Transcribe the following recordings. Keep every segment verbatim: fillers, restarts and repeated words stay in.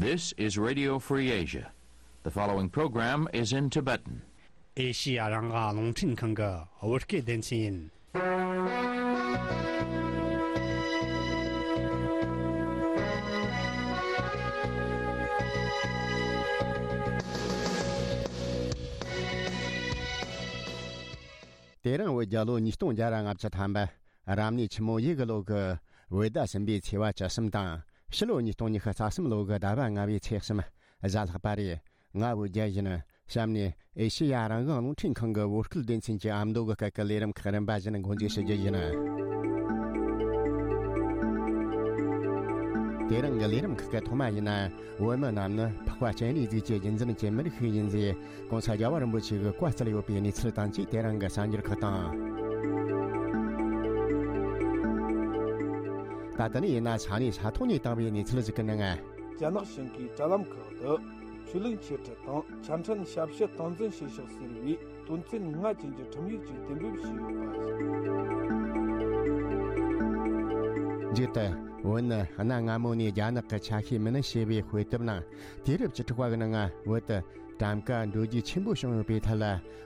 This is Radio Free Asia. The following program is in Tibetan. ཨེ་ཤི་ཡ་རང་དབང་རླུང་འཕྲིན་ཁང་གི་བོད་སྐད་སྡེ་ཚན་ཡིན། དེ་རིང་བོད་རྒྱལ་ལོ་ཉིས་སྟོང་བརྒྱ་ར་ལྔ་བཅུ་ཐམ་པ། རབ་གནས་ཆུ་མོ་ཡོས་གི་ལོ་གི་བོད་ཟླ་གསུམ་པའི་ཚེས་པ་བཅུ་གསུམ་དང་། ཕྱི་ལོ་ཉིས་སྟོང་ཉི་ཤུ་རྩ་གསུམ་ལོ་གི་ཟླ་བ་ལྔ་པའི་ཚེས་གསུམ་གཟའ་ལྷག་པ་རེད། ང་བོད་རྒྱལ་ཡིན། གཤམ་ནས་ཨེ་ཤེ་ཡ་རང་དབང་རླུང་འཕྲིན་ཁང་གི་བོད་སྐད་སྡེ་ཚན་གྱི་ཨ་མདོ་གི་སྐད་ཀྱི་ལས་རིམ་ཁག་རིམ་པ་བཞིན་འགོ་འཛུགས་ཞུ་རྒྱུ་ཡིན། དེ་རིང་གི་ལས་རིམ་ཁག་གི་ཐོག་མ་ཡིན་ན། བོད་མི་རྣམས་ནི་འཕགས་པ་སྤྱན་རས་གཟིགས་ཀྱི་རྒྱུད་འཛིན་གྱི་མི་རིགས་ཤིག་ཡིན་ཟེར། གོང་ས་རྒྱལ་བ་རིན་པོ་ཆེ་གིས་བཀའ་སྩལ་ཡོད་པའི་གནས་ཚུལ་དང་བཅས། དེ་རིང་གི་གསར་འགྱུར་ཁག་དང་། ད་ལྟ་ནས་ཡིན་ན་ས་གནས་ས་ཐོག་ནས་བཏང་བའི་གནས་ཚུལ་ཞིག་གི་ནང་། རྒྱ་ནག་གཞུང་གིས་དྲ་ལམ་ཁག་ཏུ་ཆོས་ལུགས་འཆད་ཁྲིད་དང་ཆ་འཕྲིན་ཞབས་ཞུ་སྟངས་འཛིན་བྱེད་ཕྱོགས་ཟེར་བའི་དོན་ཚན་ལྔ་ཅན་གྱི་ཁྲིམས་ཡིག་ཅིག་གཏན་འབེབས་བྱས་ཡོད་པ་རེད། མཇུག་ཏུ། བོད་ནི་གནའ་སྔ་མོ་ནས་རྒྱ་ནག་གི་ཆ་ཤས་མིན་ཞེས་པའི་དཔེ་དེབ་ནང་། དུས་རབས་བཅུ་དྲུག་པ་གི་ནང་བོད་དུ་གྲངས་ཀ་འགྲོ་རྒྱུག་ཆེན་པོ་བྱུང་ཡོད་པའི་ཐད་ལ་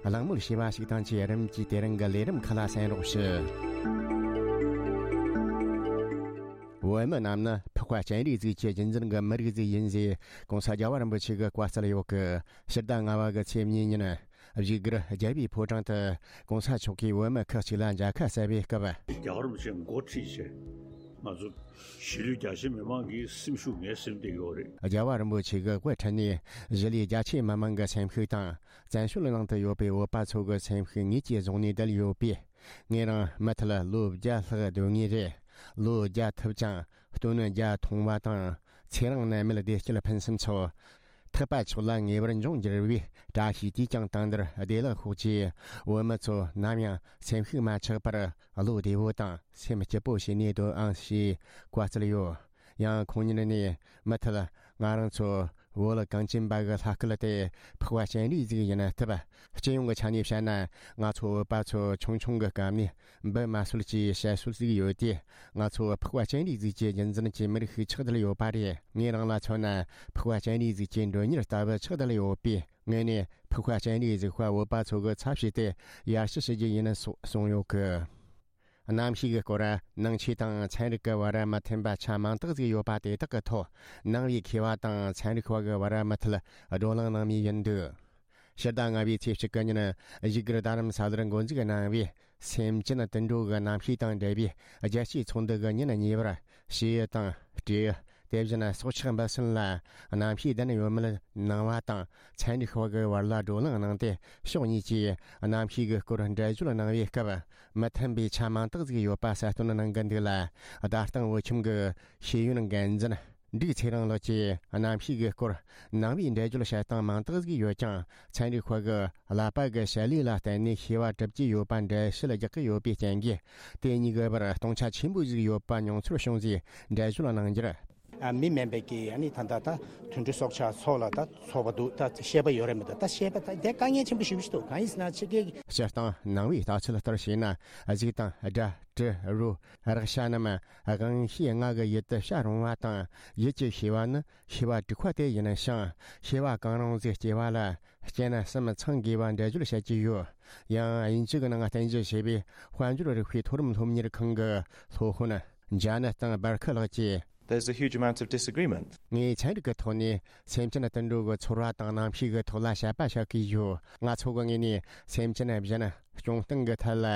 གླེང་མོལ་བྱས་པ་ཞིག་དང་བཅས། རིམ་གྱིས་དེ་རིང་གི་ལས་རིམ་ཁག་ལ་གསན་རོགས་ཞུ། བོད་མི་རྣམས་ནི་འཕགས་པ་སྤྱན་རས་གཟིགས་ཀྱི་རྒྱུད་འཛིན་གྱི་མི་རིགས་ཤིག་ཡིན་ཟེར། གོང་ས་རྒྱལ་བ་རིན་པོ་ཆེ་གིས་བཀའ་སྩལ་ཡོད་གི། ཕྱི་ཟླ་ལྔ་པ་གི་ཚེས་གཉིས་ཉིན། བཞུགས་སྒར་རྒྱལ་བའི་ཕོ་བྲང་དུ་གོང་ས་མཆོག་གིས་བོད་མི་ཁག་ཅིག་ལ་མཇལ་ཁ་གསལ་བའི་སྐབས། རྒྱལ་བ་རིན་པོ་ཆེ་འགོ་ཁྲིད་བྱས། ང་ཚོ་གཞིས་ལུས་རྒྱ་ཆེ་མི་མང་གི་སེམས་ཤུགས་ངའི་སེམས་དེ་ཡོད་རེད། རྒྱལ་བ་རིན་པོ་ཆེ་གིས་དབུ་ཁྲིད་ནས་གཞིས་ལུས་རྒྱ་ཆེ་མི་མང་གི་སེམས་ཤུགས་དང་། བཙན་བྱོལ་ནང་དུ་ཡོད་པའི་བོད་པ་ཚོ་གི་སེམས་ཤུགས་ངེད་ཀྱིས་བཟུང་ནས་བསྡད་ཡོད་པས། ངེད་རང་མུ་མཐུད་ལོ་བརྒྱ་ལྷག་སྡོད་ངེས་རེད། ལོ་བརྒྱ་ཐུབ་ཀྱང་སྟོན་བརྒྱ་ཐུང་བ་དང་། ཚེ་རིང་ནད་མེད་བདེ་སྐྱིད་ཕུན་སུམ་ཚོགས། ཐེག་པ་མཆོག་ལ་ངེས་པར་འབྱོན་གྱུར་པའི་བཀྲ་ཤིས་དུས་ཀྱང་དུས་འདིར་བདེ་ལེགས་ཤོག་ཅེས། བོད་མི་ཚོ་ནམ་ཡང་སེམས་ཤུགས་མ་ཆག་པར་བློ་བདེ་བོ་དང་སེམས་སྐྱིད་པོ་བྱས་ནས་སྡོད་ཨང་ཞེས་བཀའ་སྩལ་ཡོད། ཡང་ཁོང་ཉིད་ནས་མུ་མཐུད་ང་རང་ཚོ་བོད་གངས་ཅན་པ་གི་ལྷ་སྐལ་དེ་འཕགས་པ་སྤྱན་རས་གཟིགས་ཡིན་སྟབས། སྤྱི་ཡོངས་ཀྱི་ཆ་ནས་བཤད་ན། ང་ཚོ་བོད་པ་ཚོ་ཆུང་ཆུང་གི་སྐབས་ནས་འབུ་མ་གསོད་ཅེས་བཤད་སྲོལ་ཞིག་ཡོད་དེ། ང་ཚོ་འཕགས་པ་སྤྱན་རས་གཟིགས་ཀྱི་རྒྱུད་འཛིན་གྱི་མི་རིགས་ཤིག་ཆགས་བསྡད་ཡོད་པ་རེད། ངེད་རང་ལ་མཚོན་ན། འཕགས་པ་སྤྱན་རས་གཟིགས་ཀྱི་མགྲོན་གཉེར་ལྟ་བུ་ཆགས་བསྡད་ཡོད་པས། ངེད་ནས་འཕགས་པ་སྤྱན་རས་གཟིགས་པ་བོད་པ་ཚོ་གི་ཚབ་བྱས་ཏེ་ཡར་ཞུ་ཞུ་རྒྱུ་ཡིན་སོགས་གསུངས་ཡོད་གི། གནམ་གཤིས་ཀྱི་སྐོར། ནང་ཆོས་དང་ཚན་རིག་གི་བར་མི་མཐུན་པ་ཆ་མང་དག་ཅིག་ཡོད་པ་དེ་དག་གི་ཐོག་ནང་པའི་མཁས་པ་དང་ཚན་རིག་པ་གི་བར་མུ་མཐུད་བགྲོ་གླེང་གནང་མུས་ཡིན་འདུག། ཕྱི་ཟླ་ལྔ་པའི་ཚེས་གཅིག་གི་ཉིན། བཞུགས་སྒར་རྡ་རམ་ས་ལར་འགོ་འཛུགས་གནང་བའི་སེམས་ཅན་དུད་འགྲོ་གི་རྣམ་ཤེས་དང་འབྲེལ་བའི་རྒྱལ་སྤྱིའི་ཚོགས་འདུ་གི་ཉིན་གཉིས་པར། བྱེའུ་དང་སྤྲེའུ། དེ་བཞིན་སྲོག་ཆགས་འབུ་སྲིན་ལ་རྣམ་ཤེས་ལྡན་ཡོད་མེད་གནང་བ་དང་། ཚན་རིག་པ་གི་བར་ལ་བགྲོ་གླེང་གནང་སྟེ། ཕྱོགས་གཉིས་ཀྱིས་རྣམ་ཤེས་ཀྱི་སྐོར་འགྲེལ་བརྗོད་གནང་བའི་སྐབས། མི་མཐུན་པའི་ཆ་མང་དག་ཅིག་ཡོད་པ་གསལ་སྟོན་གནང་གི་འདུག་ལ། རྡ་སྟེང་བོད་ཁྱིམ་གྱི་ཤེས་ཡོན་འགན་འཛིན་འབྲུག་ཚེ་རིང་ལགས་ཀྱིས། རྣམ་ཤེས་ཀྱི་སྐོར་ནང་པའི་འགྲེལ་བརྗོད་བྱེད་སྟངས་མང་དག་ཅིག་ཡོད་ཀྱང་། ཚན་རིག་པ་གི་ཀླད་པ་གི་བྱེད་ལས་ལ་བརྟེན་ནས་ཤེས་པ་གྲུབ་ཀྱི་ཡོད་པ་འགྲེལ་བཤད་རྒྱག་གི་ཡོད་པའི་རྐྱེན་གྱིས། དེ་གཉིས་ཀྱི་བར་སྟོང་ཆ་ཆེན་པོ་ཞིག་ཡོད་པ་མྱོང་ཚོར་བྱུང་ཟེར་འགྲེལ་བརྗོད་གནང་རྒྱུར། ཨ། མི་དམན་པའི་གི་ཨ་ནི་ད་ལྟ་ད་དུད་འགྲོ་སྲོག་ཆགས་ཚོ་ལ་ད་ཚོགས་པ་འདུག། ད་ཤེས་པ་ཡོད་རེད་མི་འདུག། ད་ཤེས་པ་ད་དེ་དཀའ་ངལ་ཆེན་པོ་ཞེ་པོ་ཞིག་འདུག། གང་ཡིན་ཟེར་ན་ཕྱི་རྒྱལ་གྱི། སྤྱིར་བཏང་ནང་པའི་ལྟ་ཚུལ་ལྟར་བྱས་ན། གཟུགས་དང་སྒྲ་དྲི་རོ་རེག་བྱ་རྣམས་དབང་ཤེས་ལྔ་གི་ཡུལ་དུ་བྱ་རུང་བ་དང་། ཡུལ་གྱི་ཤེས་པ་ནི་ཤེས་པ་དྲུག་པ་དེ་ཡིན་ཞིང་། ཤེས་པ་གང་རུང་ཟིག་སྐྱེ་བ་ལ་རྐྱེན་གསུམ་ཚང་དགོས་པ་འགྲེལ་བརྗོད་བྱེད་ཀྱི་ཡོད། ཡང་དབྱིན་ཇི་གི་ནང་བསྟན་བཞག་བྱས་པའི་དཔལ་འབྱོར་རིག་པའི་མཐོ་རིམ་སློབ་གཉེར་ཁང་གི་སློབ་དཔོན་ཇ་ནེ་ཐན་སྦར་ཁི་ལགས་ཀྱིས། There's a huge amount of disagreement. ངས་ཚན་རིག་གི་ཐོག་ནས་སེམས་ཅན་དུད་འགྲོ་གི་ཚོར་བ་དང་རྣམ་ཤེས་ཀྱི་ཐོག་ལ་དཔྱད་པ་བྱེད་ཀྱི་ཡོད། ང་ཚོ་གི་ངོས་ནས་སེམས་ཅན་གཞན་སྐྱོང་སྟངས་ཀྱི་ཐད་ལ་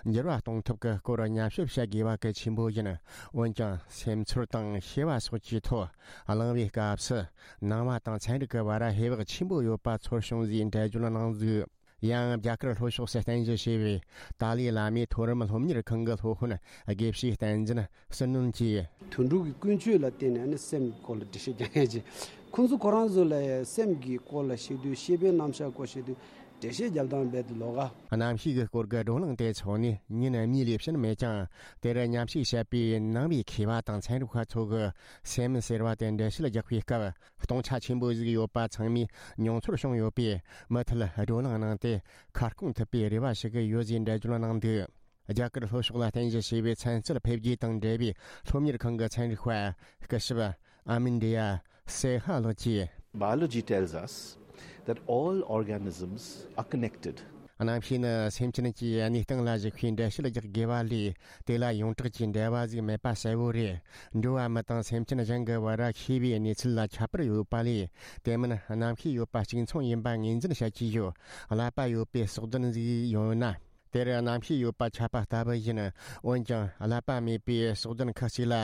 འགྱུར་བ་གཏོང་ཐབས་ཀྱི་སྐོར་ཉམས་ཞིབ་བྱེད་དགོས་པ་གལ་ཆེན་པོ་ཡིན། འོན་ཀྱང་སེམས་ཚོར་དང་ཤེས་པ་སོགས་ཀྱི་ཐོག་གླེང་བའི་སྐབས་སུ། ནང་པ་དང་ཚན་རིག་གི་བར་ཧེ་བག་ཆེན་པོ་ཡོད་པ་ཚོར་བྱུང་ཟེར་འགྲེལ་བརྗོད་གནང་འདུག། ཡང་རྒྱ་གར་ལྷོ་ཕྱོགས་སུ་རྟེན་གཞི་བྱས་པའི་ཏཱ་ལའི་བླ་མའི་མཐོ་རིམ་སློབ་གཉེར་ཁང་གི་སློབ་དཔོན་དགེ་བཤེས་བསྟན་འཛིན་བསོད་ནམས་ཀྱིས། དུད་འགྲོ་གི་ཀུན་སྤྱོད་ལ་བརྟེན་ནས་ནི་སེམས་སྐོར་ལ་འགྲེལ་བཤད་རྒྱག་མཁན་གྱི། ཁོང་ཚོ་ཁོ་རང་ཚོ་ལ་སེམས་ཀྱི་སྐོར་ལ་བཤད་དུས། ཤེས་པའི་རྣམ་གཞག་སྐོར་བཤད་དུས་འགྲེལ་བཤད་རྒྱབ་སྟངས་རྦད་དེ་ལོགས་ཀ། རྣམ་ཤེས་ཀྱི་སྐོར་གྱི་བགྲོ་གླེང་དེ་འཚོགས་ནས་ཉིན་གཉིས་ལས་ཕྱིན་མེད་ཀྱང་། དེར་མཉམ་ཞུགས་བྱས་པའི་ནང་པའི་མཁས་པ་དང་ཚན་རིག་པ་ཚོ་གིས་སེམས་ཟེར་བ་དེ་འགྲེལ་བཤད་རྒྱག་པའི་སྐབས། སྟོང་ཆ་ཆེན་པོ་ཞིག་ཡོད་པ་ཚང་མས་མྱོང་ཚོར་བྱུང་ཡོད་པས། མུ་མཐུད་བགྲོ་གླེང་གནང་སྟེ་ཁ་སྐོང་ཐུབ་པའི་རེ་བ་ཞུ་གི་ཡོད་ཅེས་འགྲེལ་བརྗོད་གནང་འདུག། རྒྱ་གར་ལྷོ་ཕྱོགས་ལ་རྟེན་གཞི་བྱས་པའི་ཚན་རྩལ་འཕེལ་རྒྱས་དང་འབྲེལ་བའི་སློབ་གཉེར་ཁང་གི་ཚན་རིག་པ་སྐུ་ཞབས་ ཨ་མིན་ཌི་ཡ་སེ་ཧ་ལགས་ཀྱིས། Biology tells us that all organisms are connected. གནམ་གཤིས་ནི་སེམས་ཅན་གྱིས་གནས་སྟངས་ལ་གཞིགས་པའི་འགྲེལ་བཤད་རྒྱག་དགོས་པ་ལས། དེ་ལ་ཡོངས་གྲགས་ཀྱི་འབྲེལ་བ་ཟིག་མེད་པ་གསལ་བོ་རེད། འགྲོ་བ་མི་དང་སེམས་ཅན་གཞན་གྱི་བར་ཤེས་པའི་གནས་ཚུལ་ལ་ཁྱད་པར་ཡོད་པ་ལས། དེ་མིན་གནམ་གཤིས་ཡོད་པ་གཅིག་མཚུངས་ཡིན་པ་ངོས་འཛིན་བྱ་རྒྱུ་ཡོད། ཀླད་པ་ཡོད་པའི་སྲོག་ལྡན་ཟིག་ཡོད་ན། དེར་གནམ་གཤིས་ཡོད་པ་ཁྱབ་པ་ལྟ་བུ་ཡིན། འོན་ཀྱང་ཀླད་པ་མེད་པའི་སྲོག་ལྡན་ཁག་ཅིག་ལ་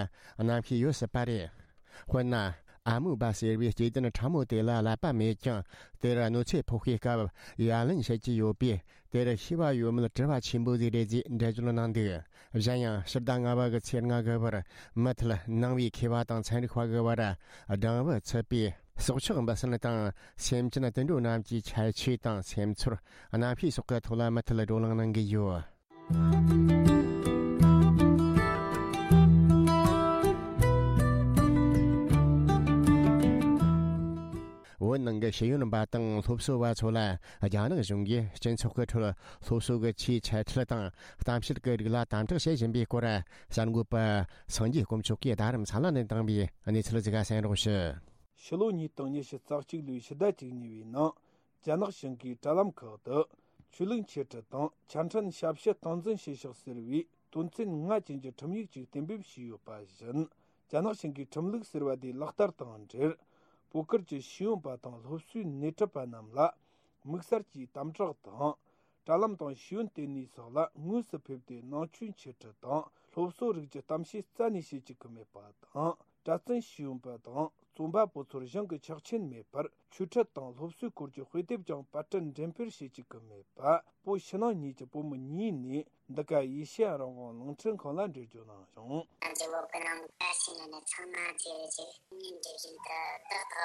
གནམ་གཤིས་ཡོད་སྲིད་པ་རེད། དཔེར་ན། ཨ་མོ་བ་ཟེར་བའི་སྐྱེ་ལྡན་ཕྲ་མོ་དེ་ལ་ཀླད་པ་མེད་ཀྱང་། དེར་གནོད་འཚེ་ཕོག་པའི་སྐབས་ཡ་ལན་བྱེད་ཀྱི་ཡོད་པས། དེར་ཤེས་པ་ཡོད་མེད་དྲི་བ་ཆེན་པོ་ཟིག་རེད་ཅེས་འགྲེལ་བརྗོད་གནང་འདུག་གཞན་ཡང་ཕྱི་ཟླ་ལྔ་པ་གི་ཚེས་ལྔ་གི་བར་མུ་མཐུད་ནང་པའི་མཁས་པ་དང་ཚན་རིག་པ་གི་བར་སྦྲང་བུ་ཚུད་པའི། སྲོག་ཆགས་འབུ་སྲིན་དང་སེམས་ཅན་དུད་འགྲོ་རྣམས་ཀྱི་ཁྱད་ཆོས་དང་སེམས་ཚོར། གནམ་གཤིས་སོགས་ཀྱི་ཐོག་ལ་མུ་མཐུད་བགྲོ་གླེང་གནང་གི་ཡོད། བོད་ནང་གི་ཤེས་ཡོན་པ་དང་སློབ་གསོ་བ་ཚོ་ལ་རྒྱ་ནག་གཞུང་གིས་སྤྱི་ཚོགས་ཀྱི་ཁྲོད་སློབ་གསོ་གི་ཆེས་ཆེ་ཁྲིད་དང་གཏམ་བཤད་ཀྱི་རིགས་ལ་དམ་དྲག་བྱེད་བཞིན་པའི་སྐོར་གསར་འགོད་པ་སངས་རྒྱས་དཀོན་མཆོག་གིས་རྡ་རམ་ས་ལ་ནས་བཏང་བའི་གནས་ཚུལ་ཟིག་གསན་རོགས་ཞུ། ཕྱི་ལོ་ཉིས་སྟོང་ཉི་ཤུ་རྩ་གཅིག་ལོའི་ཕྱི་ཟླ་བཅུ་གཉིས་པའི་ནང་རྒྱ་ནག་བྱང་གི་དྲ་ལམ་ཁག་ཏུ་ཆོས་ལུགས་འཆད་ཁྲིད་དང་ཆ་འཕྲིན་ཞབས་ཞུ་སྟངས་འཛིན་བྱེད་ཕྱོགས་ཟེར་བའི་དོན་ཚན་ལྔ་ཅན་གྱི་ཁྲིམས་ཡིག་ཅིག་གཏན་འབེབས་བྱས་ཡོད་པ་བཞིན། རྒྱ་ནག་བྱང་གི་ཁྲིམས་ལུགས་ཟེར་བ་དེ་ལག་བསྟར་དང་འབྲེལ། བོད་ཁུལ་གྱི་ཤེས་ཡོན་པ་དང་སློབ་གསོའི་སྣེ་ཁྲིད་པ་རྣམས་ལ་དམིགས་བསལ་གྱིས་དམ་དྲག་དང་། དྲ་ལམ་དང་ཤེས་ཡོན་ལྟེ་གནས་སོགས་ལ་དངོས་སུ་ཕེབས་ཏེ་ནང་ཆོས་འཆད་ཁྲིད་དང་སློབ་གསོ་རིགས་ཀྱི་གཏམ་བཤད་རྩ་ནས་བྱེད་བཅུག་གི་མེད་པ་དང་། གྲྭ་བཙུན་ཤེས་ཡོན་པ་དང་རྩོམ་པ་པོ་ཚོར་གཞུང་གི་ཆོག་མཆན་མེད་པར་ཆོས་ཁྲིད་དང་སློབ་གསོའི་སྐོར་གྱི་དཔེ་དེབ་ཀྱང་པར་སྐྲུན་འགྲེམས་སྤེལ་བྱེད་བཅུག་གི་མེད་པ། བོད་ཕྱི་ནང་གཉིས་ཀྱི་བོད་མི་གཉིས་ནས་འདི་ག་ཨེ་ཤེ་ཡ་རང་དབང་རླུང་འཕྲིན་ཁང་ལ་འགྲེལ་བརྗོད་གནང་བྱུང་། ང་ཚོ་བོད་ནང་བཀྲ་ཤིས་ནས་ཚང་མ་བརྗེ་རེ་བྱེད་ངའི་འདྲི་བཞིན་དུ་ཏག་ཏག་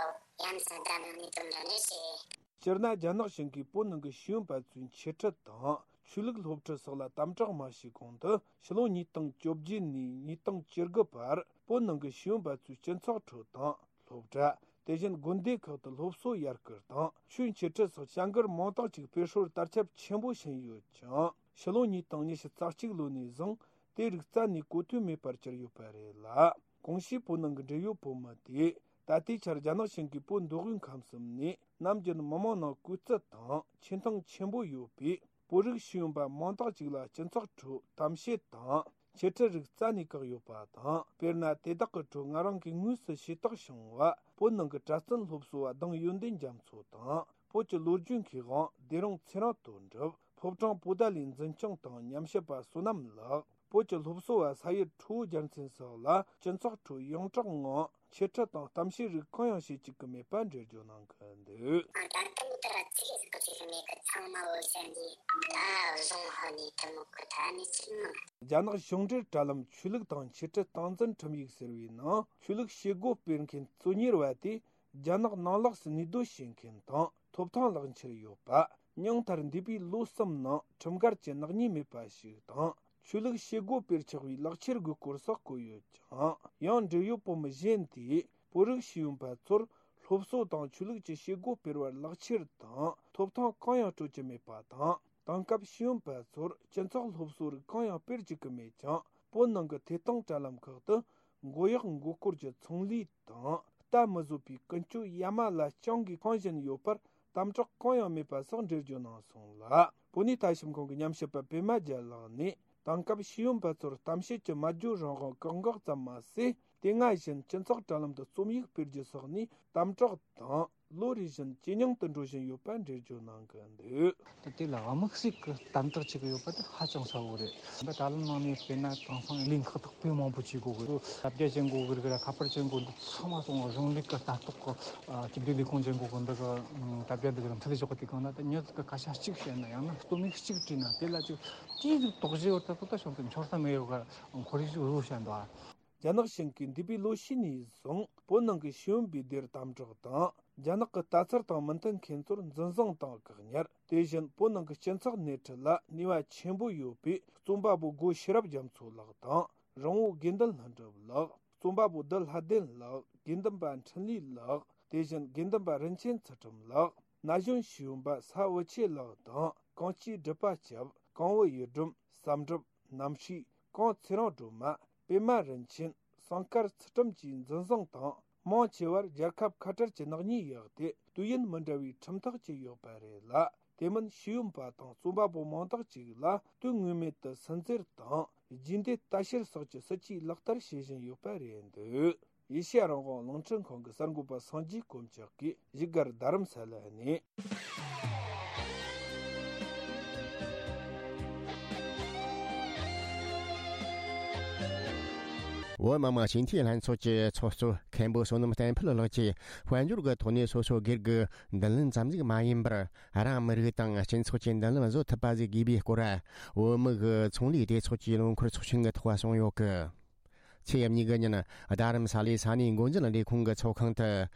ཡ་མཚན་ལྡན་ནང་ནས་དོན་འདྲ་ནས་བྱེད། སྤྱིར་ན་རྒྱ་ནག་གཞུང་གིས་བོད་ནང་གི་ཤེས་ཡོན་པ་ཚོའི་འཆད་ཁྲིད་དང་ཆོས་ལུགས་སློབ་ཁྲིད་སོགས་ལ་དམ་དྲག་མ་བྱས་གོང་དུ་ཕྱི་ལོ་ཉིས་སྟོང་བཅོ་བརྒྱད་ནས་ཉིས་སྟོང་བཅུ་དགུ་བར་བོད་ནང་གི་ཤེས་ཡོན་པ་ཚོས་སྤྱི་ཚོགས་ཁྲོད་དང་སློབ་གྲྭ། དེ་བཞིན་དགོན་སྡེ་ཁག་ཏུ་སློབ་གསོ་ཡར་སྐུལ་དང་ཆོས་འཆད་ཁྲིད་སོགས་བྱ་འགུལ་མང་དག་ཅིག་སྤེལ་སྲོལ་དར་ཁྱབ་ཆེན་པོ་ཕྱིན་ཡོད་ཅིང་། ཕྱི་ལོ་ཉིས་སྟོང་ཉི་ཤུ་རྩ་གཅིག་ལོ་ནས་བཟུང་དེ་རིགས་རྩ་ནས་གོ་ཐོས་མེད་པར་གྱུར་ཡོད་པ་རེད་ལ། གོང་ཞུས་བོད་ནང་གི་འབྲེལ་ཡོད་བོད་མི་དེས་ད་ལྟའི་ཆར་རྒྱ་ནག་གཞུང་གིས་བོད་མདོ་དབུས་ཁམས་གསུམ་ནས་ནམ་རྒྱུན་མི་མང་ནང་བཀོད་ཚད་དང་ཆེ་མཐོང་ཆེན་པོ་ཡོད་པའི་བོད་རིགས་ཤེས་ཡོན་པ་མང་དག་ཅིག་ལ་སྤྱི་ཚོགས་ཁྲོད་གཏམ་བཤད་དང་འཆད་ཁྲིད་རིགས་རྩ་ནས་བཀག་ཡོད་པ་དང་། དཔེར་ན་དེ་དག་གི་ཁྲོད་ང་རང་གིས་དངོས་སུ་ཤེས་རྟོགས་བྱུང་བ། བོད་ནང་གི་གྲྭ་བཙུན་སློབ་གསོ་བ་ལྡང་ཡོན་ཏན་རྒྱ་མཚོ་དང་། བོད་ཀྱི་ལོ་རྒྱུས་མཁས་དབང་བདེ་རུང་ཚེ་རིང་དོན་གྲུབ། ཕོ་བྲང་པོ་ཏཱ་ལའི་འཛིན་སྐྱོང་དང་ཉམས་ཞིབ་པ་བསོད་ནམས་ལགས། བོད་ཀྱི་སློབ་གསོ་བ་ས་ཡི་ཁྲོ་བོ་རྒྱལ་མཚན་སོགས་ལ་སྤྱི་ཚོགས་ཁྲོད་ཡོངས་གྲགས་ངང་འཆད་ཁྲིད་དང་གཏམ་བཤད་རིགས་གང་ཡང་བྱེད་བཅུག་གི་མེད་པ་འགྲེལ་བརྗོད་གནང་གི་འདུག་ད་ལྟ་མི་ལྟར་ཚིག་ཟིག་གི་ཚིག་གི་མེད་གི། ཚང་མ་འོ་ཟེར་ནས་ད་བཟུང་ཧོ་ནས་དེ་མོ་གི་ད་ནི་ཚིག་མང་། རྒྱ་ནག་གཞུང་འབྲེལ་དྲ་ལམ་ཆོས་ལུགས་དང་འཆད་ཁྲིད་སྟངས་འཛིན་ཁྲིམས་ཡིག་ཟེར་བའི་ནང་ཆོས་ལུགས་བྱེད་སྒོ་སྤེལ་མཁན་གཙོ་གཉེར་བ་དེ་རྒྱ་ནག་ནང་ལོགས་སུ་གནས་སྡོད་བྱེད་མཁན་དང་ཐོབ་ཐང་ལག་འཁྱེར་ཡོད་པ། ཉུང་མཐར་འདས་པའི་ལོ་གསུམ་ནང་ཁྲིམས་འགལ་གྱི་ནག་ཉེས་མེད་པ་ཞིག་དང་། ཆོས་ལུགས་བྱེད་སྒོ་སྤེལ་ཆོག་པའི་ལག་ཁྱེར་དགོས་སྐོར་སོགས་བཀོད་ཡོད་ཅིང་། ཡང་འབྲེལ་ཡོད་བོད་མི་གཞན་དེས་བོད་རིགས་ཤེས་ཡོན་པ་ཚོར་སློབ་གསོ་དང་ཆོས་ལུགས་ཀྱི་བྱེད་སྒོ་སྤེལ་བར་ལག་ཁྱེར་དང་ཐོབ་ཐང་གང་ཡང་སྤྲོད་ཀྱི་མེད་པ་དང་། དེང་སྐབས་ཤེས་ཡོན་པ་ཚོར་སྤྱི་ཚོགས་སློབ་གསོ་རིགས་གང་ཡང་སྤེལ་བཅུག་གི་མེད་ཅིང་། བོད་ནང་གི་ཐད་གཏོང་དྲ་ལམ་ཁག་ཏུ་མགོ་གཡོག་མགོ་སྐོར་གྱི་ཚོང་ལས་དང་ལྟ་མི་བཟོད་པའི་ཀུན་སྤྱོད་ཡ་མ་ལ་རྐྱང་གིས་འཁང་བཞིན་ཡོད་པར་དམ་དྲག་གང་ཡང་མེད་པ་སོགས་འགྲེལ་བརྗོད་གནང་སོང་ལ། བོད་གནས་ལྟ་ཞིབ་ཁང་གི་ཉམས་ཞིབ་པ་པད་མ་རྒྱལ་ལགས་ནས། དེང་སྐབས་ཤེས་ཡོན་པ་ཚོར་གཏམ་བཤད་ཀྱི་སྨྲ་བརྗོད་རང་དབང་བཀག་འགོག་ཙམ་མ་ཟད། དེ་སྔ་བཞིན་སྤྱི་ཚོགས་དྲ་ལམ་དུ་རྩོམ་ཡིག་སྤེལ་རྒྱུ་སོགས་ནས་དམ་དྲག་དང་ལོ་རེ་བཞིན་ཇེ་ཉུང་དུ་འགྲོ་བཞིན་ཡོད་པ་འགྲེལ་བརྗོད་གནང་གི་འདུག་ད་དེ་ལ་དམིགས་བསལ་གྱི་དམ་དྲག་བྱེད་ཀྱི་ཡོད་པ་དེ་ཧ་ཅང་གསལ་བོ་རེད། ད་དྲ་ལམ་ནང་ནས་དཔེར་ན་དེང་སང་ལས་ཁག་དག་དཔེ་མང་པོ་བྱེད་དགོས་གི་རེད། དྲ་རྒྱ་བྱེད་དགོས་གི་རེད། ཁ་པར་བྱེད་དགོས། འདི་ཚང་མ་སོང་བ་གཞུང་ལས་ཀྱི་ལྟ་རྟོག་གི་སྤྱི་བདེ་ལས་ཁུངས་བྱེད་དགོས་གི། འདི་གི་དྲ་རྒྱ་འདི་གི་མཐུད་བཞག་གི། དེ་གང་ན་ད་མྱི་ཟིག་གི་སྐད་ཆ་གཅིག་བཤད་ན་ཡང་ན་རྩོམ་ཡིག་གཅིག་བྲིས་ན་དེ་ལ་ཅིག་ཅིག་ཟིག་དོགས་གཞི་ཡོད་ད་ཚོ་ད་བྱུང་དུ་འཆོར་ས་མེད་ཡོད་ག་ཁོར་ཡུག་ཅིག་བཟོ་བཤད་འདུག་རྒྱ་ནག་གཞུང་གིས་འདས་པའི་ལོ་ཤས་ནས་བཟུང་བོད་ནང་གི་ཤེས་ཡོན་པའི་སྡེར་དམ་དྲག་དང་། རྒྱ་ནག་གི་ལྟ་ཚུལ་དང་མི་མཐུན་མཁན་ཚོར་འཛིན་བཟུང་དང་བཀག་ཉར། དེ་བཞིན་བོད་ནང་གི་སྤྱི་ཚོགས་སྣེ་ཁྲིད་ལ་ནུས་པ་ཆེན་པོ་ཡོད་པའི་རྩོམ་པ་པོ་སྒོ་ཤེས་རབ་རྒྱ་མཚོ་ལགས་དང་། རོང་བོ་དགེ་འདུན་ལྷུན་གྲུབ་ལགས། རྩོམ་པ་པོ་བདུད་ལྷ་ལྡན་ལགས། དགེ་འདུན་པ་འཕྲིན་ལས་ལགས། དེ་བཞིན་དགེ་འདུན་པ་རིན་ཆེན་ཚུལ་ཁྲིམས་ལགས། ན་གཞོན་ཤེས་ཡོན་པ་ས་བུ་ཆེ་ལགས་དང་། གངས་སྐྱིད་སྒྲུབ་པ་སྐྱབས། གང་བུ་ཡུལ་སྒྲོན། བསམ་གྲུབ། རྣམ་ཤེས། གངས་ཚེ་རིང་སྒྲོལ་མ། པད་མ་རིན་ཆེན། སང་དཀར་ཚུལ་ཁྲིམས་བཅས་འཛིན་བཟུང་དང་ མང་ཆེ་བར་རྒྱལ་ཁབ་ཁ་བྲལ་གྱི་ནག་ཉེས་བཞག་སྟེ། དུས་ཡུན་མི་འདྲ་བའི་ཁྲིམས་ཐག་བཅད་ཡོད་པ་རེད་ལ། དེ་མིན་ཤེས་ཡོན་པ་དང་རྩོམ་པ་པོ་མང་དག་ཅིག་ལ་དོན་ངེས་མེད་དུ་སུན་གཙེར་དང་རྒྱུས་འདེད་ལྟ་བཤེར་སོགས་ཀྱི་སྲིད་ཇུས་ལག་བསྟར་བྱེད་བཞིན་ཡོད་པ་རེད་འདུག། ཨེ་ཤེ་ཡ་རང་དབང་རླུང་འཕྲིན་ཁང་གི་གསར་འགོད་པ་སངས་རྒྱས་དཀོན་མཆོག་གིས་བཞུགས་སྒར་རྡ་རམ་ས་ལ་ནས། བོད་མི་མང་སྤྱི་འཐུས་ལྷན་ཚོགས་ཀྱི་ཚོགས་གཙོ་མཁན་པོ་བསོད་ནམས་བསྟན་འཕེལ་ལགས་ཀྱིས་དཔལ་འབྱོར་གྱི་ཐོག་ནས་སོ་སོའི་སྒེར་གྱི་མདུན་ལམ་ཙམ་ཟིག་མ་ཡིན་པར། རང་མི་རིགས་དང་སྤྱི་ཚོགས་ཀྱི་མདུན་ལམ་བཟོ་ཐུབ་པ་ཟིག་དགོས་པའི་སྐོར། བོད་མི་གི་ཚོང་ལས་སྡེ་ཚོགས་ཀྱི་ལོ་འཁོར་ཚོགས་ཆེན་གྱི་ཐོག་གསུངས་ཡོད་གི། ཚེས་གཉིས་གི་ཉིན་རྡ་རམ་ས་ལའི་ས་གནས་འགོ་འཛིན་ལས་ཁུངས་ཀྱི་ཚོགས་ཁང་དུ་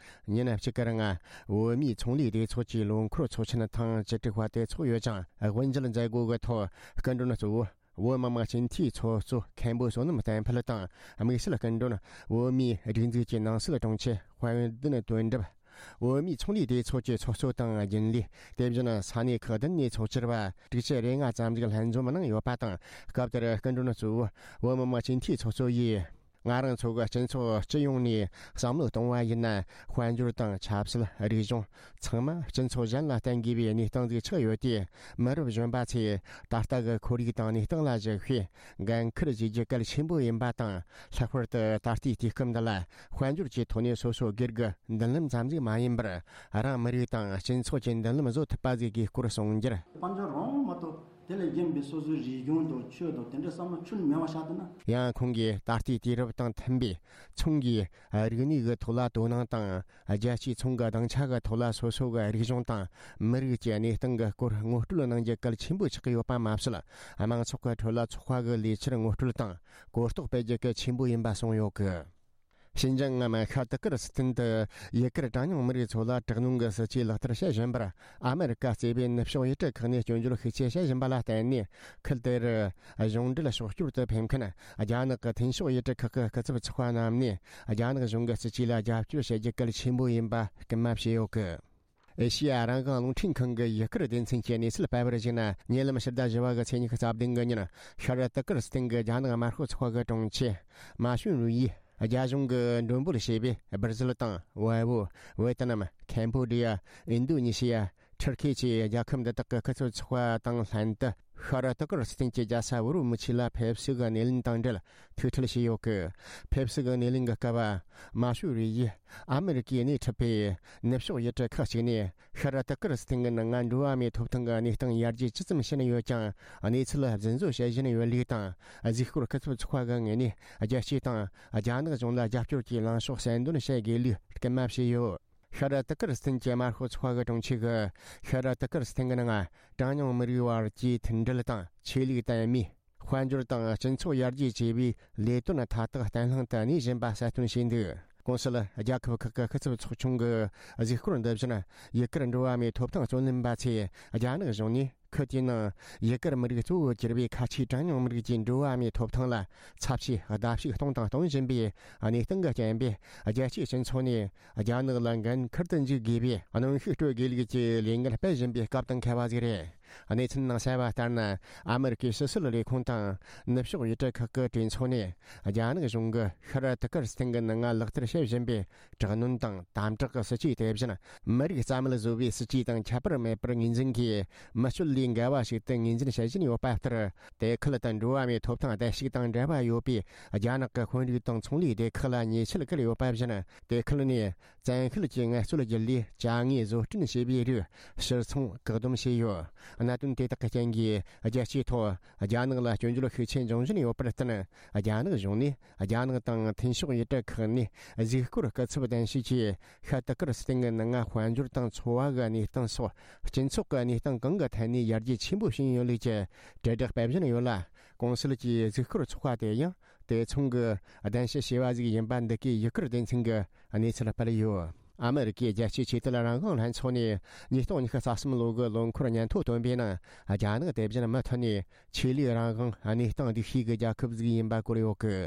ཉིན་གཅིག་གི་རིང་བོད་མིའི་ཚོང་ལས་སྡེ་ཚོགས་ཀྱི་ལོ་འཁོར་ཚོགས་ཆེན་ཐེངས་བཅུ་དྲུག་པ་དེ་ཚོགས་ཡོད་ཅིང་། དབུ་འབྱེད་མཛད་སྒོ་གི་ཐོག་སྐུ་མགྲོན་གཙོ་བོ་བོད་མི་མང་སྤྱི་འཐུས་ཚོགས་གཙོ་མཁན་པོ་བསོད་ནམས་བསྟན་འཕེལ་དང་། དམིགས་བསལ་སྐུ་མགྲོན་བོད་མིའི་སྒྲིག་འཛུགས་ཀྱི་ནང་སྲིད་དྲུང་ཆེ་དཔལ་ལྡན་དོན་གྲུབ། བོད་མིའི་ཚོང་ལས་སྡེ་ཚོགས་ཀྱི་ཚོགས་གཙོ་དང་རྒྱུན་ལས། དེ་བཞིན་ས་གནས་ཁག་བདུན་ནས་ཚོགས་བཅར་བ་དྲུག་ཅུ་རེ་ལྔ་ཙམ་ཞིག་ལྷན་འཛོམས་གནང་ཡོད་པ་དང་། སྐབས་དེར་སྐུ་མགྲོན་གཙོ་བོ་བོད་མི་མང་སྤྱི་འཐུས་ཚོགས་གཙོ་ཡིས། ང་རང་ཚོ་གི་སྤྱི་ཚོགས་སྤྱི་ཡོངས་ནས་བསམ་བློ་གཏོང་བ་ཡིན་ན། དཔལ་འབྱོར་དང་ཆབ་སྲིད། རིག་གཞུང་ཚང་མ་སྤྱི་ཚོགས་གཞན་ལ་བརྟེན་དགོས་པའི་གནས་སྟངས་ཟིག་ཆགས་ཡོད་དུས། མི་རབས་གཞོན་པ་ཚོས་ད་ལྟ་གི་ཁོར་ཡུག་དང་གནས་སྟངས་ལ་གཞིགས་ཤིང་འགན་འཁུར་བྱེད་རྒྱུ་གལ་ཆེན་པོ་ཡིན་པ་དང་། ལྷག་པར་དུ་ད་ལྟའི་དུས་སྐབས་འདི་ལ་དཔལ་འབྱོར་གྱི་ཐོག་ནས་སོ་སོ་སྒེར་གྱི་མདུན་ལམ་ཙམ་ཟིག་མ་ཡིན་པར། རང་མི་རིགས་དང་སྤྱི་ཚོགས་ཀྱི་མདུན་ལམ་བཟོ་ཐུབ་པ་ཟིག་དགོས་སྐོར་གསུངས་རྒྱུར། དཔལ་འབྱོར་རང་མ་གཏོགས་དེ་ལས་གཞན་པའི་སོ་སོའི་རིག་གཞུང་དང་ཆོས་དང་དེ་འདྲ་བསམ་བློ་ཁྱོན་མེད་པ་བཞག་ཐུབ་ན། ཡང་ཁོང་གིས་ད་ལྟའི་དུས་རབས་དང་མཐུན་པའི་ཚོང་གི་རིག་གནས་ཀྱི་ཐོག་ལ་དོ་སྣང་དང་། རྒྱལ་སྤྱིའི་ཚོང་གི་སྡིངས་ཆ་གི་ཐོག་ལ་སོ་སོ་གི་རིག་གཞུང་དང་མི་རིགས་ཀྱི་གནས་སྟངས་ཀྱི་སྐོར་ངོ་སྤྲོད་གནང་རྒྱུ་གལ་ཆེན་པོ་ཆགས་ཀྱི་ཡོད་པ་མ་ཟད། དམངས་ཚོགས་ཀྱི་ཁྲོད་ལ་ཚོགས་པ་གི་ལས་འཆར་ངོ་སྤྲོད་དང་གོ་རྟོགས་སྤེལ་རྒྱུ་གལ་ཆེན་པོ་ཡིན་པ་གསུངས་ཡོད་གི། ཤིན་ཅང་ངམ་ཤར་ཏི་ཀིར་སི་ཐན་དུ་ཡུ་གུར་གྲངས་ཉུང་མི་རིགས་ཚོ་ལ་དྲག་གནོན་གྱི་སྲིད་ཇུས་ལག་བསྟར་བྱེད་བཞིན་པར། ཨ་མེ་རི་ཀ་གཙོས་པའི་ནུབ་ཕྱོགས་ཡུལ་གྲུ་ཁག་ནས་སྐྱོན་བརྗོད་ཤུགས་ཆེ་བྱེད་བཞིན་པ་ལ་བརྟེན་ནས། ཁུལ་དེར་གཞུང་འབྲེལ་ཕྱོགས་སྐྱོར་དུ་ཕེབས་མཁན་རྒྱ་ནག་གི་ཐེན་ཕྱོགས་ཡུལ་གྲུ་ཁག་གི་སྐུ་ཚབ་ཚོགས་པ་རྣམས་ནས། རྒྱ་ནག་གཞུང་གི་སྲིད་ཇུས་ལ་རྒྱབ་སྐྱོར་བྱེད་རྒྱུ་གལ་ཆེན་པོ་ཡིན་པ་སྐུལ་མ་བྱས་ཡོད་གི། ཨེ་ཤེ་ཡ་རང་དབང་རླུང་འཕྲིན་ཁང་གི་ཡུ་གུར་སྡེ་ཚན་གྱིས་གནས་ཚུལ་སྤེལ་བར་གཞིགས་ན། ཉེ་ལམ་ཕྱི་ཟླ་བཞི་པ་གི་ཚེས་ཉི་ཤུ་རྩ་བདུན་གི་ཉིན། ཤར་ཏི་ཀིར་སི་ཐན་གྱི་རྒྱ་ནག་དམར་ཤོག་ཚོགས་པ་གི་དྲུང་ཆེ་མ་ཞུན་རུའི་ཡིས། རྒྱ་གཞུང་གིས་མགྲོན་འབོད་བྱས་པའི་སྦར་ཟིལ་དང་ཝེ་བོ། ཝེ་ཏི་ནམ། ཁེམ་བྷོ་ཌི་ཡ། ཨིན་རྡོ་ནེ་ཤི་ཡ། ཐུར་ཁེ་བཅས་རྒྱལ་ཁབ་འདི་དག་གི་སྐུ་ཚབ་ཚོགས་པ་དང་ལྷན་དུ། ཤར་ཏི་ཀིར་སི་ཐན་གྱི་རྒྱལ་ས་ཨུ་རུ་མུ་ཆི་ལ་ཕེབས་བསུ་གི་སྣེ་ལེན་དང་འབྲེལ་ཐུགས་ཁྲལ་བྱས་ཡོད་གི། ཕེབས་བསུ་གི་སྣེ་ལེན་གྱི་སྐབས། མ་ཞུ་རུའི་ཡིས་ཨ་མེ་རི་ཀས་སྣེ་ཁྲིད་པའི་ནུབ་ཕྱོགས་ཡུལ་གྲུ་ཁག་ཅིག་ནས། ཤར་ཏི་ཀིར་སི་ཐན་གྱི་ནང་ང་འགྲོ་བ་མིའི་ཐོབ་ཐང་གི་གནས་སྟངས་ཡར་རྒྱས་ཇི་ཙམ་ཕྱིན་ཡོད་ཀྱང་། གནས་ཚུལ་རྫུན་བཟོ་བྱེད་བཞིན་ཡོད་ལུགས་དང་། གཟིགས་སྐོར་སྐུ་ཚབ་ཚོགས་པ་གི་ངོས་ནས། རྒྱལ་སྤྱི་དང་རྒྱ་ནག་གཞུང་ལ་རྒྱབ་སྐྱོར་གྱི་ལངས་ཕྱོགས་གསལ་འདོན་བྱེད་དགོས་ལུགས་སྐུལ་མ་བྱས་ཡོད། ཤར་ཏི་ཀིར་སི་ཐན་གྱི་དམར་ཤོག་ཚོགས་པ་གི་དྲུང་ཆེ་གིས། ཤར་ཏི་ཀིར་སི་ཐན་གྱི་ནང་གྲངས་ཉུང་མི་རིགས་བར་གྱི་མཐུན་སྒྲིལ་དང་ཆོས་ལུགས་དད་མོས། དཔལ་འབྱོར་དང་སྤྱི་ཚོགས་ཡར་རྒྱས་བཅས་པའི་ལས་དོན་མཐའ་དག་བརྟན་ལྷིང་དུ་གནས་བཞིན་པ་གསལ་སྟོན་བྱས་འདུག། གོང་ཞུས་རྒྱལ་ཁབ་ཁག་གི་སྐུ་ཚབ་ཚོགས་ཆུང་གི་གཟིགས་སྐོར་འདི་བཞིན། ཡུ་གུར་འགྲོ་བ་མིའི་ཐོབ་ཐང་རྩོད་ལེན་པ་ཚོས་རྒྱ་ནག་གཞུང་ནས་ཁུལ་དེའི་ནང་ཡུ་གུར་མི་རིགས་གཙོ་བོར་གྱུར་པའི་ཁ་ཆེའི་གྲངས་ཉུང་མི་རིགས་ཀྱི་འགྲོ་བ་མིའི་ཐོབ་ཐང་ལ་ཚབས་ཆེའི་བརྡབ་གསིག་གཏོང་དང་གཏོང་བཞིན་པའི་གནས་སྟངས་ཀྱི་རྐྱེན་པས། རྒྱལ་སྤྱིའི་སྤྱི་ཚོགས་ནས་རྒྱ་ནག་ལ་འགན་འཁུར་དུ་འཇུག་དགོས་པའི་གནོན་ཤུགས་སྤྲོད་དགོས་ལུགས་ཀྱི་ལས་འགུལ་སྤེལ་བཞིན་པའི་སྐབས་དང་འཁེལ་བ་ཞིག་རེད། གནས་ཚུལ་ནང་གསལ་བ་ལྟར་ན། ཨ་མེ་རི་ཀའི་ཕྱི་སྲིད་ལས་ཁུངས་དང་ནུབ་ཕྱོགས་ཡུལ་གྲུ་ཁག་གི་གྲོས་ཚོགས་ནས། རྒྱ་ནག་གཞུང་གིས་ཤར་ཏི་ཀིར་སི་ཐན་གྱི་ནང་ང་ལག་བསྟར་བྱེད་བཞིན་པའི་དྲག་གནོན་དང་དམ་དྲག་གི་སྲིད་ཇུས་དེ་བཞིན། མི་རིགས་རྩ་མེད་བཟོ་བའི་སྲིད་ཇུས་དང་ཁྱད་པར་མེད་པར་ངོས་འཛིན་གྱིས། མི་སྤྱོད་ལས་འགལ་བ་ཞིག་ཏུ་ངོས་འཛིན་བྱེད་བཞིན་ཡོད་པ་ལྟར། དེ་ཁུལ་དུ་འགྲོ་བ་མིའི་ཐོབ་ཐང་བརྡལ་བཤིག་དང་འབྲེལ་བ་ཡོད་པའི་རྒྱ་ནག་གི་དཔོན་རིགས་དང་ཚོང་ལས་སྡེ་ཁག་ལ་ཉེས་ཆད་བཀལ་ཡོད་པ་བཞིན། དེ་ཁུལ་ནས་བཙན་ཤེད་ཀྱིས་ངལ་རྩོལ་བརྒྱུད་ལས་ཅ་དངོས་བཟོ་སྐྲུན་བྱས་པའི་རིགས་ཕྱིར་ཚོང་བཀག་སྡོམ་བྱས་ཡོད། གནད་དོན་དེ་དག་གི་རྐྱེན་གྱིས་རྒྱལ་སྤྱིའི་ཐོག་རྒྱ་ནག་ལ་སྐྱོན་བརྗོད་ཤུགས་ཆེ་འབྱུང་བཞིན་ཡོད་པར་བརྟེན། རྒྱ་ནག་གཞུང་ནས་རྒྱ་ནག་དང་ཐེན་ཕྱོགས་ཡུལ་གྲུ་ཁག་ནས་གཟིགས་སྐོར་སྐུ་ཚབ་གདན་ཞུས་ཀྱིས། ཤར་ཏི་ཀིར་སི་ཐན་གྱི་ནང་ང་དཔལ་འབྱོར་དང་འཚོ་བ་གི་གནས་སྟངས་སོགས་སྤྱི་ཚོགས་ཀྱི་གནས་སྟངས་གང་གི་ཐད་ནས་ཡར་རྒྱས་ཆེན་པོ་ཕྱིན་ཡོད་ལུགས་ཀྱི་དྲིལ་བསྒྲགས་སྤེལ་བཞིན་ཡོད་ལ། གོང་ཞུས་ཀྱི་གཟིགས་སྐོར་ཚོགས་པ་དེ་ཡང་དེ་མཚུངས་ཀྱི་གདན་ཞུ་བྱས་པ་ཞིག་ཡིན་པ་འདི་གའི་ཡུ་གུར་སྡེ་ཚན་གྱིས་གནས་ཚུལ་སྤེལ་ཡོད། ཨ་མེ་རི་ཀའི་རྒྱལ་སྤྱིའི་ཆོས་དད་རང་དབང་ལྷན་ཚོགས་ནས་ཉིས་སྟོང་ཉི་ཤུ་རྩ་གསུམ་ལོ་གི་ལོ་འཁོར་སྙན་ཐོ་བཏོན་པའི་ནང་། རྒྱ་ནག་དེ་བཞིན་མུ་མཐུད་ནས་ཆོས་ལུགས་རང་དབང་གནས་སྟངས་སྡུག་ཤོས་ཀྱི་རྒྱལ་ཁབ་ཟིག་ཡིན་པ་བཀོད་ཡོད་གི།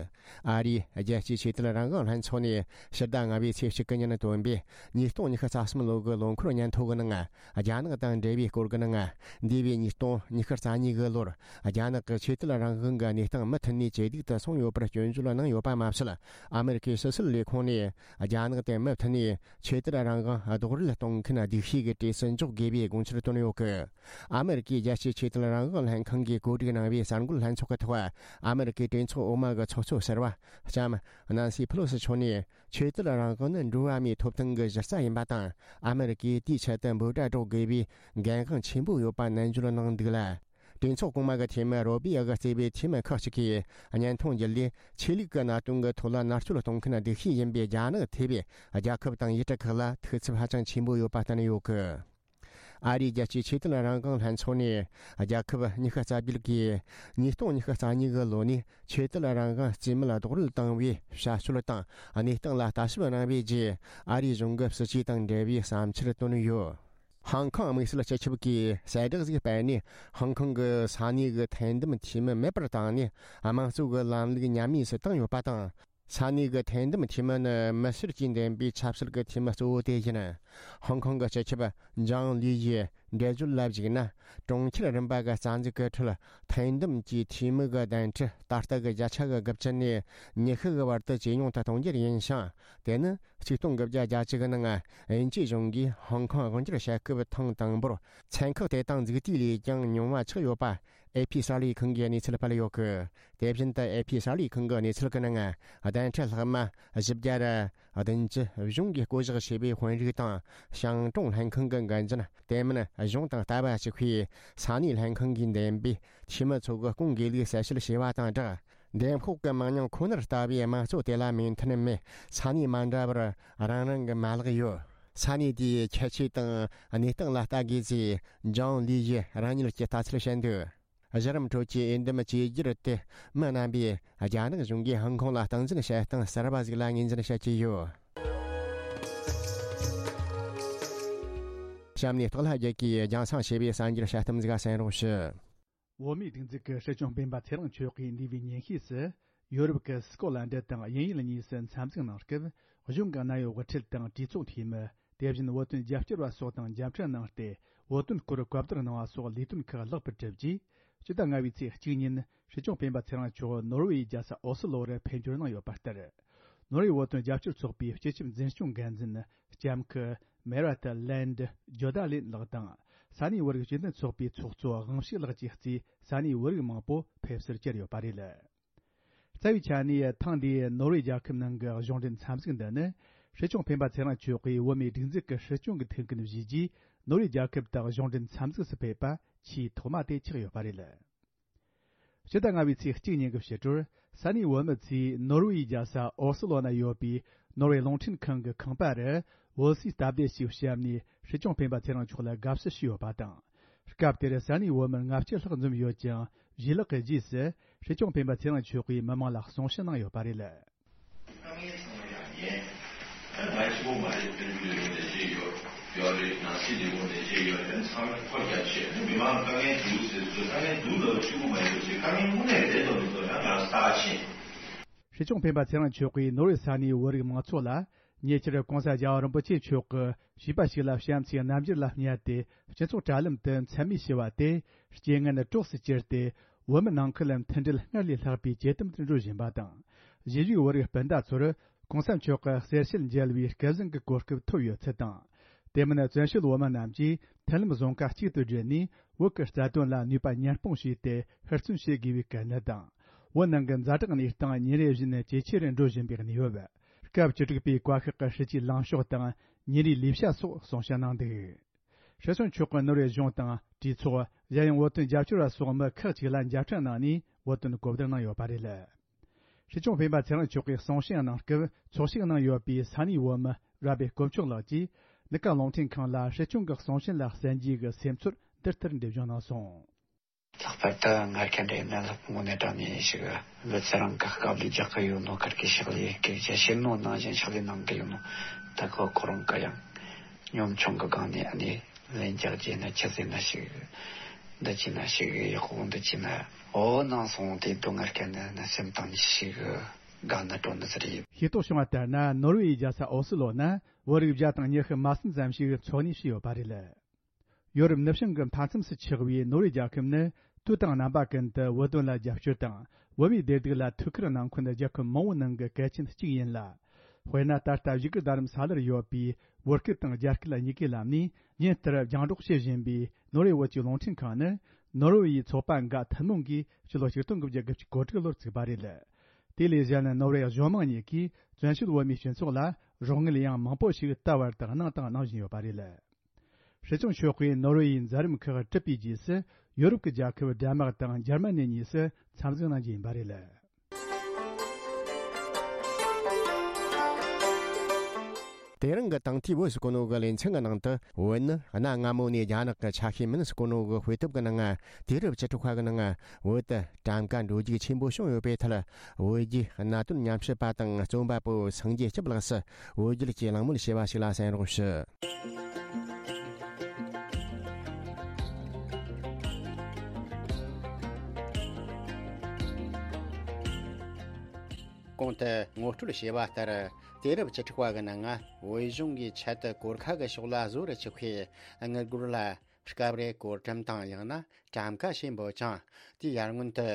ཨ་རིའི་རྒྱལ་སྤྱིའི་ཆོས་དད་རང་དབང་ལྷན་ཚོགས་ནས་ཕྱི་ཟླ་ལྔ་པའི་ཚེས་གཅིག་གི་ཉིན་བཏོན་པའི་ཉིས་སྟོང་ཉི་ཤུ་རྩ་གསུམ་ལོ་གི་ལོ་འཁོར་སྙན་ཐོ་གི་ནང་། རྒྱ་ནག་དང་འབྲེལ་བའི་སྐོར་གྱི་ནང་། འདས་པའི་ཉིས་སྟོང་ཉི་ཤུ་རྩ་གཉིས་གི་ལོར་རྒྱ་ནག་གི་ཆོས་དད་རང་དབང་གི་གནས་སྟངས་མུ་མཐུད་ནས་ཇེ་སྡུག་ཏུ་སོང་ཡོད་པར་སྐྱོན་བརྗོད་གནང་ཡོད་པ་མ་ཟད། ཨ་མེ་རི་ཁའི་ཕྱི་སྲིད་ལས་ཁུངས་ནས་རྒྱ་ནག་དེ་མུ་མཐུད་ནས་ཆོས་དད་རང་དབང་རྡོག་རོལ་གཏོང་མཁན་སྡུག་ཤོས་ཀྱི་གྲས་སུ་འཇོག་དགོས་པའི་དགོངས་འཆར་བཏོན་ཡོད་གི། ཨ་མེ་རི་ཀའི་རྒྱལ་སྤྱིའི་ཆོས་དད་རང་དབང་ལྷན་ཁང་གིས་གོ་སྒྲིག་གནང་བའི་གསར་འགོད་ལྷན་ཚོགས་ཀྱི་ཐོག་ཨ་མེ་རི་ཀའི་གྲོས་ཚོགས་འོག་མ་གི་ཚོགས་གཙོ་ཟུར་པ་ལྕམ་ནན་སི་ཕེ་ལོ་སི་མཆོག་ནས། ཆོས་དད་རང་དབང་ནི་འགྲོ་བ་མིའི་ཐོབ་ཐང་གི་གཞི་རྩ་ཡིན་པ་དང་། ཨ་མེ་རི་ཀས་དེའི་ཆེད་དུ་འབོད་སྒྲ་སྒྲོག་དགོས་པའི་འགན་དབང་ཆེན་པོ་ཡོད་པ་ནན་བརྗོད་གནང་འདུག་ལ། གྲོས་ཚོགས་གོང་མ་གི་འཐུས་མི་རོ་བྷི་ཡ་གིས་གཙོས་པའི་འཐུས་མི་ཁག་ཅིག་གིས་སྙན་ཐོ་འབྱེད་ལས། ཆོས་ལུགས་ཀྱི་གནད་དོན་གྱི་ཐོག་ལ་མནར་གཅོད་གཏོང་མཁན་སྡུག་ཤོས་ཡིན་པའི་རྒྱ་ནག་ཐེ་བའི་རྒྱལ་ཁབ་དང་ཡུལ་གྲུ་ཁག་ལ་ཐུགས་འཚབ་ཧ་ཅང་ཆེན་པོ་ཡོད་པ་བསྟན་ཡོད་གི། ཨ་རིའི་རྒྱལ་སྤྱིའི་ཆོས་དད་རང་དབང་ལྷན་ཚོགས་ནས་རྒྱལ་ཁབ་ཉི་ཤུ་རྩ་བརྒྱད་ཀྱིས་ཉིས་སྟོང་ཉི་ཤུ་རྩ་གཉིས་ཀྱི་ལོ་ནས་ཆོས་དད་རང་དབང་རྩིས་མེད་རྡོག་རོལ་བཏང་བའི་བྱ་སྤྱོད་དང་གནས་སྟངས་ལ་ལྟ་ཞིབ་གནང་བའི་རྗེས། ཨ་རིའི་གཞུང་གི་སྲིད་ཇུས་དང་འབྲེལ་བའི་བསམ་འཆར་བཏོན་ཡོད། ཧང་ཀོང་དམིགས་བསལ་སྤྱི་ཁྱབ་ཀྱིས་གསལ་བསྒྲགས་ཤིག་སྤེལ་ནས། ཧང་ཀོང་གི་ས་གནས་ཀྱི་ཐེར་འདེམས་འཐུས་མི་མེད་པར་བཏང་ནས། དམངས་གཙོ་གི་ལམ་ལུགས་ཉམས་དམས་སུ་བཏང་ཡོད་པ་དང་། ས་གནས་ཀྱི་ཐེར་འདེམས་འཐུས་མི་ནི་མི་སེར་གྱིས་འདེམས་པའི་ཆབ་སྲིད་ཀྱི་འཐུས་མི་གཙོ་བོ་དེ་ཡིན། ཧོང་ཀོང་གི་སྤྱི་ཁྱབ་ཇང་ལི་ཡིས་འགྲེལ་བརྗོད་ལ་གཞིགས་ན། གྲོང་ཁྱེར་རིམ་པ་གི་རྩ་འཛུགས་ཀྱི་ཁྲོད་ཐེར་འདེམས་ཀྱི་འཐུས་མི་གི་གདན་ཁྲི་ད་ལྟ་གི་བརྒྱ་ཆ་གི་དགུ་བཅུ་ནས་ཉི་ཤུ་གི་བར་དུ་ཇེ་ཉུང་དུ་གཏོང་རྒྱུ་ཡིན་ཞིང་། དེ་ནི་ཆིག་སྟོང་དགུ་བརྒྱ་བརྒྱད་ཅུ་གི་ནང་དབྱིན་ཇིའི་གཞུང་གིས་ཧོང་ཀོང་དབང་སྒྱུར་བྱེད་སྐབས་ཐེངས་དང་པོར་ཚན་ཁག་དེ་དག་འཛུགས་དུས་ལས་ཀྱང་ཉུང་བ་ཆགས་ཡོད་པ། ཨེ་ཕི་གསར་ལས་ཁང་གིས་གནས་ཚུལ་སྤེལ་ཡོད་གི། དེ་བཞིན་དུ་ཨེ་ཕི་གསར་ལས་ཁང་གི་གནས་ཚུལ་གྱི་ནང་། གདན་ཁྲི་ལྷག་མ་བཞི་བརྒྱ་ར་བདུན་ཅུ་གཞུང་གིས་བསྐོ་གཞག་བྱས་པའི་དཔོན་རིགས་དང་། ཤང་ཀྲུང་ལྷན་ཁང་གི་འགན་འཛིན། དེ་མིན་གཞུང་དང་ལྟ་བ་གཅིག་པའི་ས་གནས་ལྷན་ཁང་གིས་འདེམས་པའི་འཐུས་མི་ཚོ་གི་སྐུང་དགེ་ལུགས་གསལ་བཤད་བྱས་པ་དང་སྦྲགས། འདེམས་ཤོག་གི་མང་ཉུང་ཁོ་ནར་ལྟ་བའི་དམངས་གཙོ་དེ་ལ་མོས་མཐུན་མེད་ས་གནས་མ་འདྲ་བར་རང་རང་གི་མ་ལག་ཡོད། ས་གནས་དེའི་ཁྱད་ཆོས་དང་གནས་སྟངས་ལ་ལྟ་དགོས་ཚེ། ཇང་ལི་ཡིས་རང་ཉིད་ཀྱི་ལྟ་ཚུལ་བཤད་འདུག། གཞི་རིམ་ཁྲོད་ཀྱི་འོས་འདེམས་བཅོས་བསྒྱུར་དེ་མི་རྣམ་པས་རྒྱ་ནག་གཞུང་གིས་ཧང་ཀོང་ལ་སྟངས་འཛིན་བྱེད་སྟངས་གསར་པ་ཞིག་ལ་ངོས་འཛིན་བྱེད་ཀྱི་ཡོད། གཤམ་ནས་སྟག་ལྷ་རྒྱལ་གྱིས་རྒྱང་སྲིང་བྱས་པའི་གསར་འགྱུར་དཔྱད་གཏམ་ཟིག་གསན་རོགས་ཞུ། བོད་མིའི་སྒྲིག་འཛུགས་ཀྱི་སྲིད་སྐྱོང་སྤེན་པ་ཚེ་རིང་མཆོག་གིས་འདས་པའི་ཉིན་ཤས་སུ། ཡོ་རོབ་ཀྱི་སི་ཀོ་ལན་ཌི་དང་དབྱིན་ཡུལ་གཉིས་སུ་འཚམས་གཟིགས་གནང་སྐབས། གཞུང་གི་གནད་ཡོད་དབུ་ཁྲིད་དང་གྲོས་ཚོགས་འཐུས་མི། དེ་བཞིན་བོད་དོན་རྒྱབ་སྐྱོར་བ་སོགས་དང་མཇལ་འཕྲད་གནང་སྟེ། བོད་དོན་སྐོར་གོ་བསྡུར་གནང་བ་སོགས་ལས་དོན་ཁག་ལེགས་པར་གྲུབ་རྗེས། སྤྱི་ཟླ་ལྔ་པའི་ཚེས་གཅིག་ཉིན། སྲིད་སྐྱོང་སྤེན་པ་ཚེ་རིང་མཆོག་ནོར་ཝེ་ཡི་རྒྱལ་ས་ཨོ་སི་ལོ་རུ་ཕེབས་འབྱོར་གནང་ཡོད་པ་ལྟར། ནོར་ཝེ་བོད་དོན་རྒྱབ་སྐྱོར་ཚོགས་པའི་སྤྱི་ཁྱབ་འཛིན་སྐྱོང་འགན་འཛིན་ལྕམ་སྐུ་མེ་ར་ཏི་ལན་ཌི་ཇོ་ད་ལིན་ལགས་དང་། ས་གནས་བོད་རིགས་སྤྱི་མཐུན་ཚོགས་པའི་ཚོགས་གཙོ་དབང་ཕྱུག་ལགས་བཅས་གཙོས་ས་གནས་བོད་རིགས་མང་པོ་ཕེབས་བསུར་བཅར་ཡོད་པ་རེད། རྩ་བའི་ཆ་ནས་ཐེངས་འདིའི་ནོར་ཝེ་རྒྱལ་ཁབ་ནང་གི་གཞུང་འབྲེལ་འཚམས་གཟིགས་འདི་ནི། སྲིད་སྐྱོང་སྤེན་པ་ཚེ་རིང་མཆོག་གིས་བོད་མིའི་སྒྲིག་འཛུགས་ཀྱི་སྲིད་སྐྱོང་གི་ཐུགས་འགན་བཞེས་རྗེས། ནོར་ཝེ་རྒྱལ་ཁབ་དང་གཞུང་འབྲེལ་འཚམས་གཟིགས་སུ་ཕེབས་པ་ཆེས་ཐོག་མ་དེ་ཆགས་ཡོད་པ་རེད། ཕྱི་ཟླ་ལྔ་པའི་ཚེས་གཅིག་ཉིན་གྱི་ཕྱི་དྲོར། ས་གནས་བོད་མི་ཚོས་ནོར་ཝེ་ཡི་རྒྱལ་ས་ཨོ་སི་ལོ་ན་ཡོད་པའི་ནོར་ཝེ་རླུང་འཕྲིན་ཁང་གི་ཁང་པ་རུ་བོད་སའི་སྟབས་བདེ་ཞིག་བཤམས་ནས། སྲིད་སྐྱོང་སྤེན་པ་ཚེ་རིང་མཆོག་ལ་དགའ་བསུ་ཞུས་ཡོད་པ་དང་། སྐབས་དེར་ས་གནས་བོད་མི་ལྔ་བཅུ་ལྷག་འཛོམས་ཡོད་ཅིང་། བཞེས་ལག་གི་རྗེས་སུ། སྲིད་སྐྱོང་སྤེན་པ་ཚེ་རིང་མཆོག་གིས་མི་མང་ལ་གསུང་བཤད་གནང་ཡོད་པ་རེད། དཀའ་ངལ་ཚང་མ་ཡང་ཡིན། ད་ང་གཅིག་པོ་མ་རེད། དཔལ་འབྱོར་ལས་ཁུངས་ནས་བྱས་ཡོད། ཡོད་རེད། ནང་སྲིད་ལས་ཁུངས་ནས་བྱས་ཡོད་རེད། ཚང་མས་ཁོ་རྒྱ་ཆེ་ནི་མི་མང་དཀའ་ངལ་འདུག་ཟེར་ཚོད། དཀའ་ངལ་འདུག་ལབ་གཅིག་པོ་མ་ཡིན་པ་བྱས། དཀའ་ངལ་དངོས་གནས་རེད་དོ་མི་དོ་ཡང་ང་ལ་ས་ཆེ། སྲིད་སྐྱོང་སྤེན་པ་ཚེ་རིང་མཆོག་གིས་ནོར་ཝེ་ས་གནས་བོད་རིགས་མང་ཚོགས་ལ། ཉེ་ཆར་གོང་ས་རྒྱལ་བ་རིན་པོ་ཆེ་མཆོག་གིས་བྱིས་པ་ཞིག་ལ་བྱམས་བརྩེའི་རྣམ་འགྱུར་ལ་བསྙད་དེ། སྤྱི་ཚོགས་དྲ་ལམ་དུ་མཚན་སྨད་བྱས་པ་དེ། རྐྱེན་ངན་གྲོགས་སུ་གྱུར་ཏེ། བོད་མི་ནང་ཁུལ་ལ་མཐུན་སྒྲིལ་སྔར་ལས་ལྷག་པའི་ཇེ་དམ་དུ་འགྲོ་བཞིན་པ་དང་། གཞིས་བཞུགས་བོད་རིགས་སྤུན་ཟླ་ཚོར་གོང་ས་མཆོག་གི་གསེར་ཞལ་མཇལ་བའི་སྐལ་བཟང་གི་གོ་སྐབས་ཐོབ་ཡོད་ཚུལ་དང་། དེ་མིན་བཙན་བྱོལ་བོད་མི་རྣམས་ཀྱིས་མཐུན་ལམ་བཟང་ཁ་གཅིག་ཏུ་བསྒྲིལ་ནས། བོད་ཀྱི་རྩ་དོན་ལ་ནུས་པ་ཉར་སྤུངས་བྱས་ཏེ། ཧུར་བརྩོན་བྱེད་དགོས་པའི་གལ་གནད་དང་། བོད་ནང་གི་ཛ་དྲག་གནས་སྟངས་ཉིན་རེ་བཞིན་ཇེ་ཆེ་རུ་འགྲོ་བཞིན་པའི་གནས་བབ། སྐབས་བཅུ་དྲུག་པའི་བཀའ་ཤག་གི་སྲིད་ཇུས་ལངས་ཕྱོགས་དང་། ཉིན་རེའི་ལས་བྱ་སོགས་གསུང་བཤད་གནང་འདུག། སྲིད་སྐྱོང་མཆོག་གིས་ནོར་ཝེ་གཞུང་དང་། གྲོས་ཚོགས། གཞན་ཡང་བོད་དོན་རྒྱབ་སྐྱོར་བ་སོགས་མི་ཁག་ཅིག་ལ་མཇལ་འཕྲད་གནང་ནས། བོད་དོན་གོ་བསྡུར་གནང་ཡོད་པ་རེད། སྲིད་སྐྱོང་སྤེན་པ་ཚེ་རིང་མཆོག་གིས་གསུང་བཤད་གནང་སྐབས། ཚོགས་ཞུགས་གནང་ཡོད་པའི་ས་གནས་བོད་མི་རབ་པའི་དཀོན་མཆོག་ལགས་ཀྱིས། གནས་སྐབས་རླུང་འཕྲིན་ཁང་ལ་སྲིད་སྐྱོང་གི་གསུང་བཤད་ལ་གསན་རྒྱུ་གི་སེམས་ཚོར་འདི་ལྟར་འགྲེལ་བརྗོད་གནང་སོང་། ལྷག་པར་དུ་སྔར་ཁ་འདྲ་ཡིན་ན་ལྷག་པ་ངོ་ནས་དྲངས་ནས་ཞིག་ལུས་རྩལ་རང་གི་དཀའ་ལས་རྒྱག་གི་ཡོད་ནོ། ཁར་གི་ཕྱག་ལས་སྐད་ཆ་བཤད་ནོ་ནང་བཞིན་ཕྱག་ལས་གནང་གི་ཡོད་ནོ། ད་གི་ཁོ་རང་གི་ཡང་གཉོམ་ཆུང་གི་སྒང་ནས་ཨ་ནི་ལན་རྒྱག་རྒྱུ་ན་ཆི་ཟེར་ན་ཞིག་འདི་བྱས་ན་ཞིག་ཡག་པོ་འདི་བྱས་ན་འོ་ནང་སོང་དེ་དུ་སྔར་ཁ་ནས་ན་སེམས་གཏིང་ནས་ཞིག་དགའ་ནི་སྤྲོ་ནི་ཟེར་ཡིན། ཤེས་རྟོགས་བྱུང་བ་ལྟར་ན། ནོར་ཝེ་ཡི་རྒྱལ་ས་ཨོ་སི་ལོ་ན་བོད་རིགས་བརྒྱ་དང་ཉི་ཤུ་མ་ཟིན་ཙམ་ཞིག་འཚོ་གནས་བྱས་ཡོད་པ་རེད། ཡོ་རོབ་ནུབ་བྱང་གི་མཐའ་མཚམས་སུ་ཆགས་པའི་ནོར་ཝེ་རྒྱལ་ཁབ་ནི་དུས་དང་རྣམ་པ་ཀུན་ཏུ་བོད་དོན་ལ་རྒྱབ་སྐྱོར་དང་བོད་མིའི་བདེ་སྡུག་ལ་ཐུགས་ཁུར་གནང་མཁན་རྒྱལ་ཁབ་མང་བོའི་ནང་གི་གལ་ཆེན་གཅིག་ཡིན་ལ། དཔེར་ན། ད་ལྟ་བཞུགས་སྒར་རྡ་རམ་ས་ལར་ཡོད་པའི་བོད་སྐད་དང་རྒྱ་སྐད་གཉིས་ཀའི་ལམ་ནས་ཉིན་ལྟར་རྒྱང་སྒྲོག་བྱེད་བཞིན་པའི་ནོར་ཝེ་བོད་ཀྱི་རླུང་འཕྲིན་ཁང་ནི། ནོར་ཝེ་ཡི་ཚོགས་པ་འགའ་ཐུན་མོང་གིས་ཕྱི་ལོ་ཆིག་སྟོང་དགུ་བརྒྱ་དགུ་བཅུ་གོ་དྲུག་ལོར་བཙུགས་པ་རེད། དེ་ལས་གཞན་ནོར་ཝེ་གཞུང་མང་གཉིས་ཀྱིས་བཙན་བྱོལ་བོད་མིའི་སྤྱི་ཚོགས་ལ་རོགས་དངུལ་ཡང་མང་པོ་ཞིག་ད་བར་དུ་གནང་དང་གནང་བཞིན་ཡོད་པ་རེད། སྲིད་སྐྱོང་མཆོག་གིས་ནོར་ཝེ་ཡི་མཛད་རིམ་ཁག་གྲུབ་པའི་རྗེས་སུ། ཡོ་རོབ་ཀྱི་རྒྱལ་ཁབ་ཌེན་མཱག་དང་འཇར་མ་ནི་གཉིས་སུ་འཚམས་གཟིགས་གནང་རྒྱུ་ཡིན་པ་རེད། དེ་རིང་གི་དང་ཐོག་བོད་ཟེར་གོ་ནོ་གི་ལེ་ཚན་གྱི་ནང་དུ། བོད་ནི་གནའ་སྔ་མོ་ནས་རྒྱ་ནག་གི་ཆ་ཤས་མིན་ཟེར་གོ་ནོ་གི་དཔེ་དེབ་ཀྱི་ནང་ང་། དུས་རབས་བཅུ་དྲུག་པ་གི་ནང་ང་བོད་དུ་གྲམ་ཀ་འགྲོ་རྒྱུག་ཆེན་པོ་བྱུང་ཡོད་པའི་ཐད། བོད་བརྒྱུད་གནད་དོན་ཉམས་ཞིབ་པ་དང་རྩོམ་པ་པོ་སངས་རྒྱས་སྐྱབས་ལགས་སུ་བོད་བརྒྱུད་ཀྱི་གླེང་མོལ་བྱས་པ་ཞིག་ལ་གསན་རོགས་ཞུ། གོང་དུ་ངོ་སྤྲོད་བྱས་པ་ལྟར། དུས་རབས་བཅུ་དྲུག་པ་གི་ནང་ང་བོད་གཞུང་གིས་ཆེད་དུ་གོར་ཁ་གི་ཕྱོགས་ལ་བཟོ་རུ་བཅུག་པའི་དངུལ་སྒོར་ལ། སྐབས་རེ་གོར་ཊམ་དང་ཡང་ན་གྲམ་ཀ་ཞེས་འབོད་ཅིང་། དེའི་ཡར་སྔོན་དུ་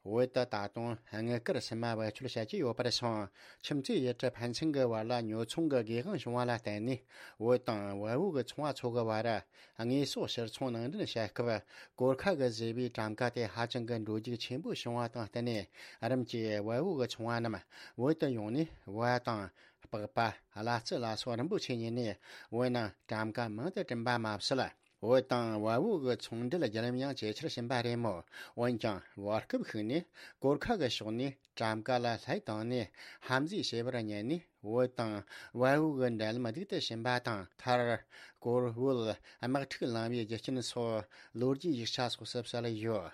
བོད་དུ་ད་དུང་དངུལ་དཀར་སིལ་མ་བེད་སྤྱོད་བྱེད་ཀྱི་ཡོད་པར་སོང་། ཁྱིམ་མཚེས་ཡུལ་གྲུ་ཕན་ཚུན་གྱི་བར་ལ་ཉོ་ཚོང་གི་སྒེར་དབང་བྱུང་བ་ལ་བརྟེན་ནས། བོད་དང་བལ་པོ་གི་ཚོང་བ་ཚོ་གི་བར་དངོས་ཟོག་ཕྱིར་ཚོང་ནང་འདྲེན་བྱེད་སྐབས། གོར་ཁ་གིས་བཟོས་པའི་གྲམ་ཀ་དེ་ཧ་ཅང་གི་འགྲོ་རྒྱུག་ཆེན་པོ་བྱུང་བ་དང་བསྟུན་ནས། རིམ་གྱིས་བལ་པོ་གི་ཚོང་བ་རྣམས་བོད་དུ་ཡོང་ནས། བལ་དང་པགས་པ། གླ་རྩི་ལ་སོགས་རིན་པོ་ཆེ་ཉོས་ནས། བོད་ནང་གྲམ་ཀ་མང་དུ་བསྐྲུན་པ་མ་ཟད། བོད་དང་བལ་པོ་གི་ཚོང་འབྲེལ་བརྒྱུད་རིམ་ཡང་ཇེ་ཆེར་ཕྱིན་པ་རེད་མོད། འོན་ཀྱང་བར་སྐབས་ཤིག་ནས་གོར་ཁ་གི་ཕྱོགས་ནས་གྲམ་ཀ་ལ་ལྷད་བཏང་ནས་ཧམ་འཛུལ་བྱས་པར་ཉན་ནས། བོད་དང་བལ་པོ་གི་འབྲེལ་ལམ་སྡུག་ཏུ་ཕྱིན་པ་དང་། མཐར་གོར་བལ་དམག་འཁྲུག་ལངས་པའི་རྒྱུ་རྐྱེན་སོགས་ལོ་རྒྱུས་ཡིག་ཆ་སོགས་སུ་གསལ་ཡོད།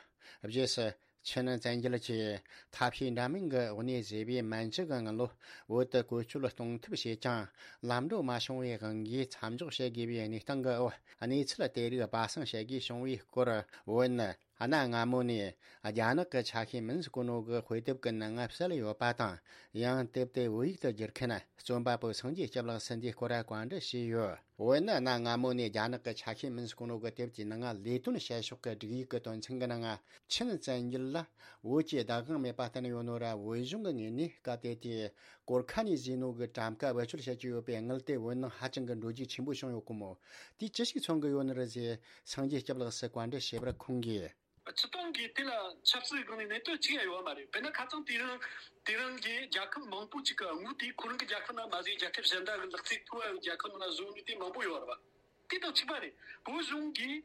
རྗེས་སུ། ཆིན་བཙན་རྒྱལ་གྱིས་ཐབས་ཤེས་འདྲ་མིན་གྱི་འོག་ནས་བཟོས་པའི་མན་ཇུ་གི་དངུལ་ལོར་བོད་དུ་བཀོལ་སྤྱོད་གཏོང་ཐབས་བྱས་ཀྱང་། ལམ་འགྲོ་མ་བྱུང་བའི་དབང་གིས་མཚམས་འཇོག་བྱེད་དགོས་པའི་གནས་སྟངས་ཀྱི་འོག་གནས་ཚུལ་དེ་རིགས་སྦ་གསང་བྱེད་དགོས་བྱུང་བའི་སྐོར། བོད་ནི་གནའ་སྔ་མོ་ནས་རྒྱ་ནག་གི་ཆ་ཤས་མིན་ཟེར་གོ་ནོ་གི་དཔེ་དེབ་ཀྱི་ནང་ང་གསལ་ཡོད་པ་དང་། ཡང་དེབ་དེ་བོད་ཡིག་ཏུ་བསྒྱུར་མཁན་རྩོམ་པ་པོ་སངས་རྒྱས་སྐྱབས་ལགས་སུ་འདིའི་སྐོར་བཀའ་འདྲི་ཞུས་ཡོད། བོད་ནི་གནའ་སྔ་མོ་ནས་རྒྱ་ནག་གི་ཆ་ཤས་མིན་ཟེར་གོ་ནོ་གི་དེབ་ཀྱི་ནང་ང་ལས་དོན་བྱེད་ཕྱོགས་ཀྱི་སྒྲིག་ཡིག་གི་དོན་ཚན་གྱི་ནང་ང་། ཆིན་བཙན་རྒྱལ་ལ་བོད་ཀྱི་བདག་དབང་མེད་པ་བསྟན་ཡོད་ནོ་ར། བོད་གཞུང་གི་ངོས་ནས་སྐབས་དེ་དུས་གོར་ཁ་ནས་བཟོས་ནོ་གི་གྲམ་ཀ་བེད་སྤྱོད་བྱེད་ཀྱི་ཡོད་པའི་དངུལ་དེ་བོད་ནང་ཧ་ཅང་གི་འགྲོ་རྒྱུག་ཆེན་པོ་བྱུང་ཡོད་གོ་མོད། དེས་ཅི་ཞིག་མཚོན་གྱི་ཡོད་ནི་རེད་ཟེར་སངས་རྒྱས་སྐྱབས་ལགས་སུ་བཀའ་འདྲི་བྱས་པར་ཁོང་གིས། སྤྱིར་བཏང་གི་དེ་ལ་ཆབ་སྲིད་སྒང་ནས་གནད་དོན་གཅིག་ཡང་ཡོད་མ་རེད། དཔེར་ན་ཁ་སང་དེ་རིང་དེ་རིང་གི་རྒྱལ་ཁབ་མང་པོ་ཅིག་གི་དངུལ་དེ་ཁོ་རང་གི་རྒྱལ་ཁབ་ནང་མ་ཟད་རྒྱལ་ཁབ་གཞན་དག་གི་ལག་རྩལ་མཐོ་བའི་རྒྱལ་ཁབ་ནང་བཟོ་ནི་དེ་མང་པོ་ཡོད་རེད་བ། དེ་དང་གཅིག་པ་རེད། བོད་གཞུང་གིས་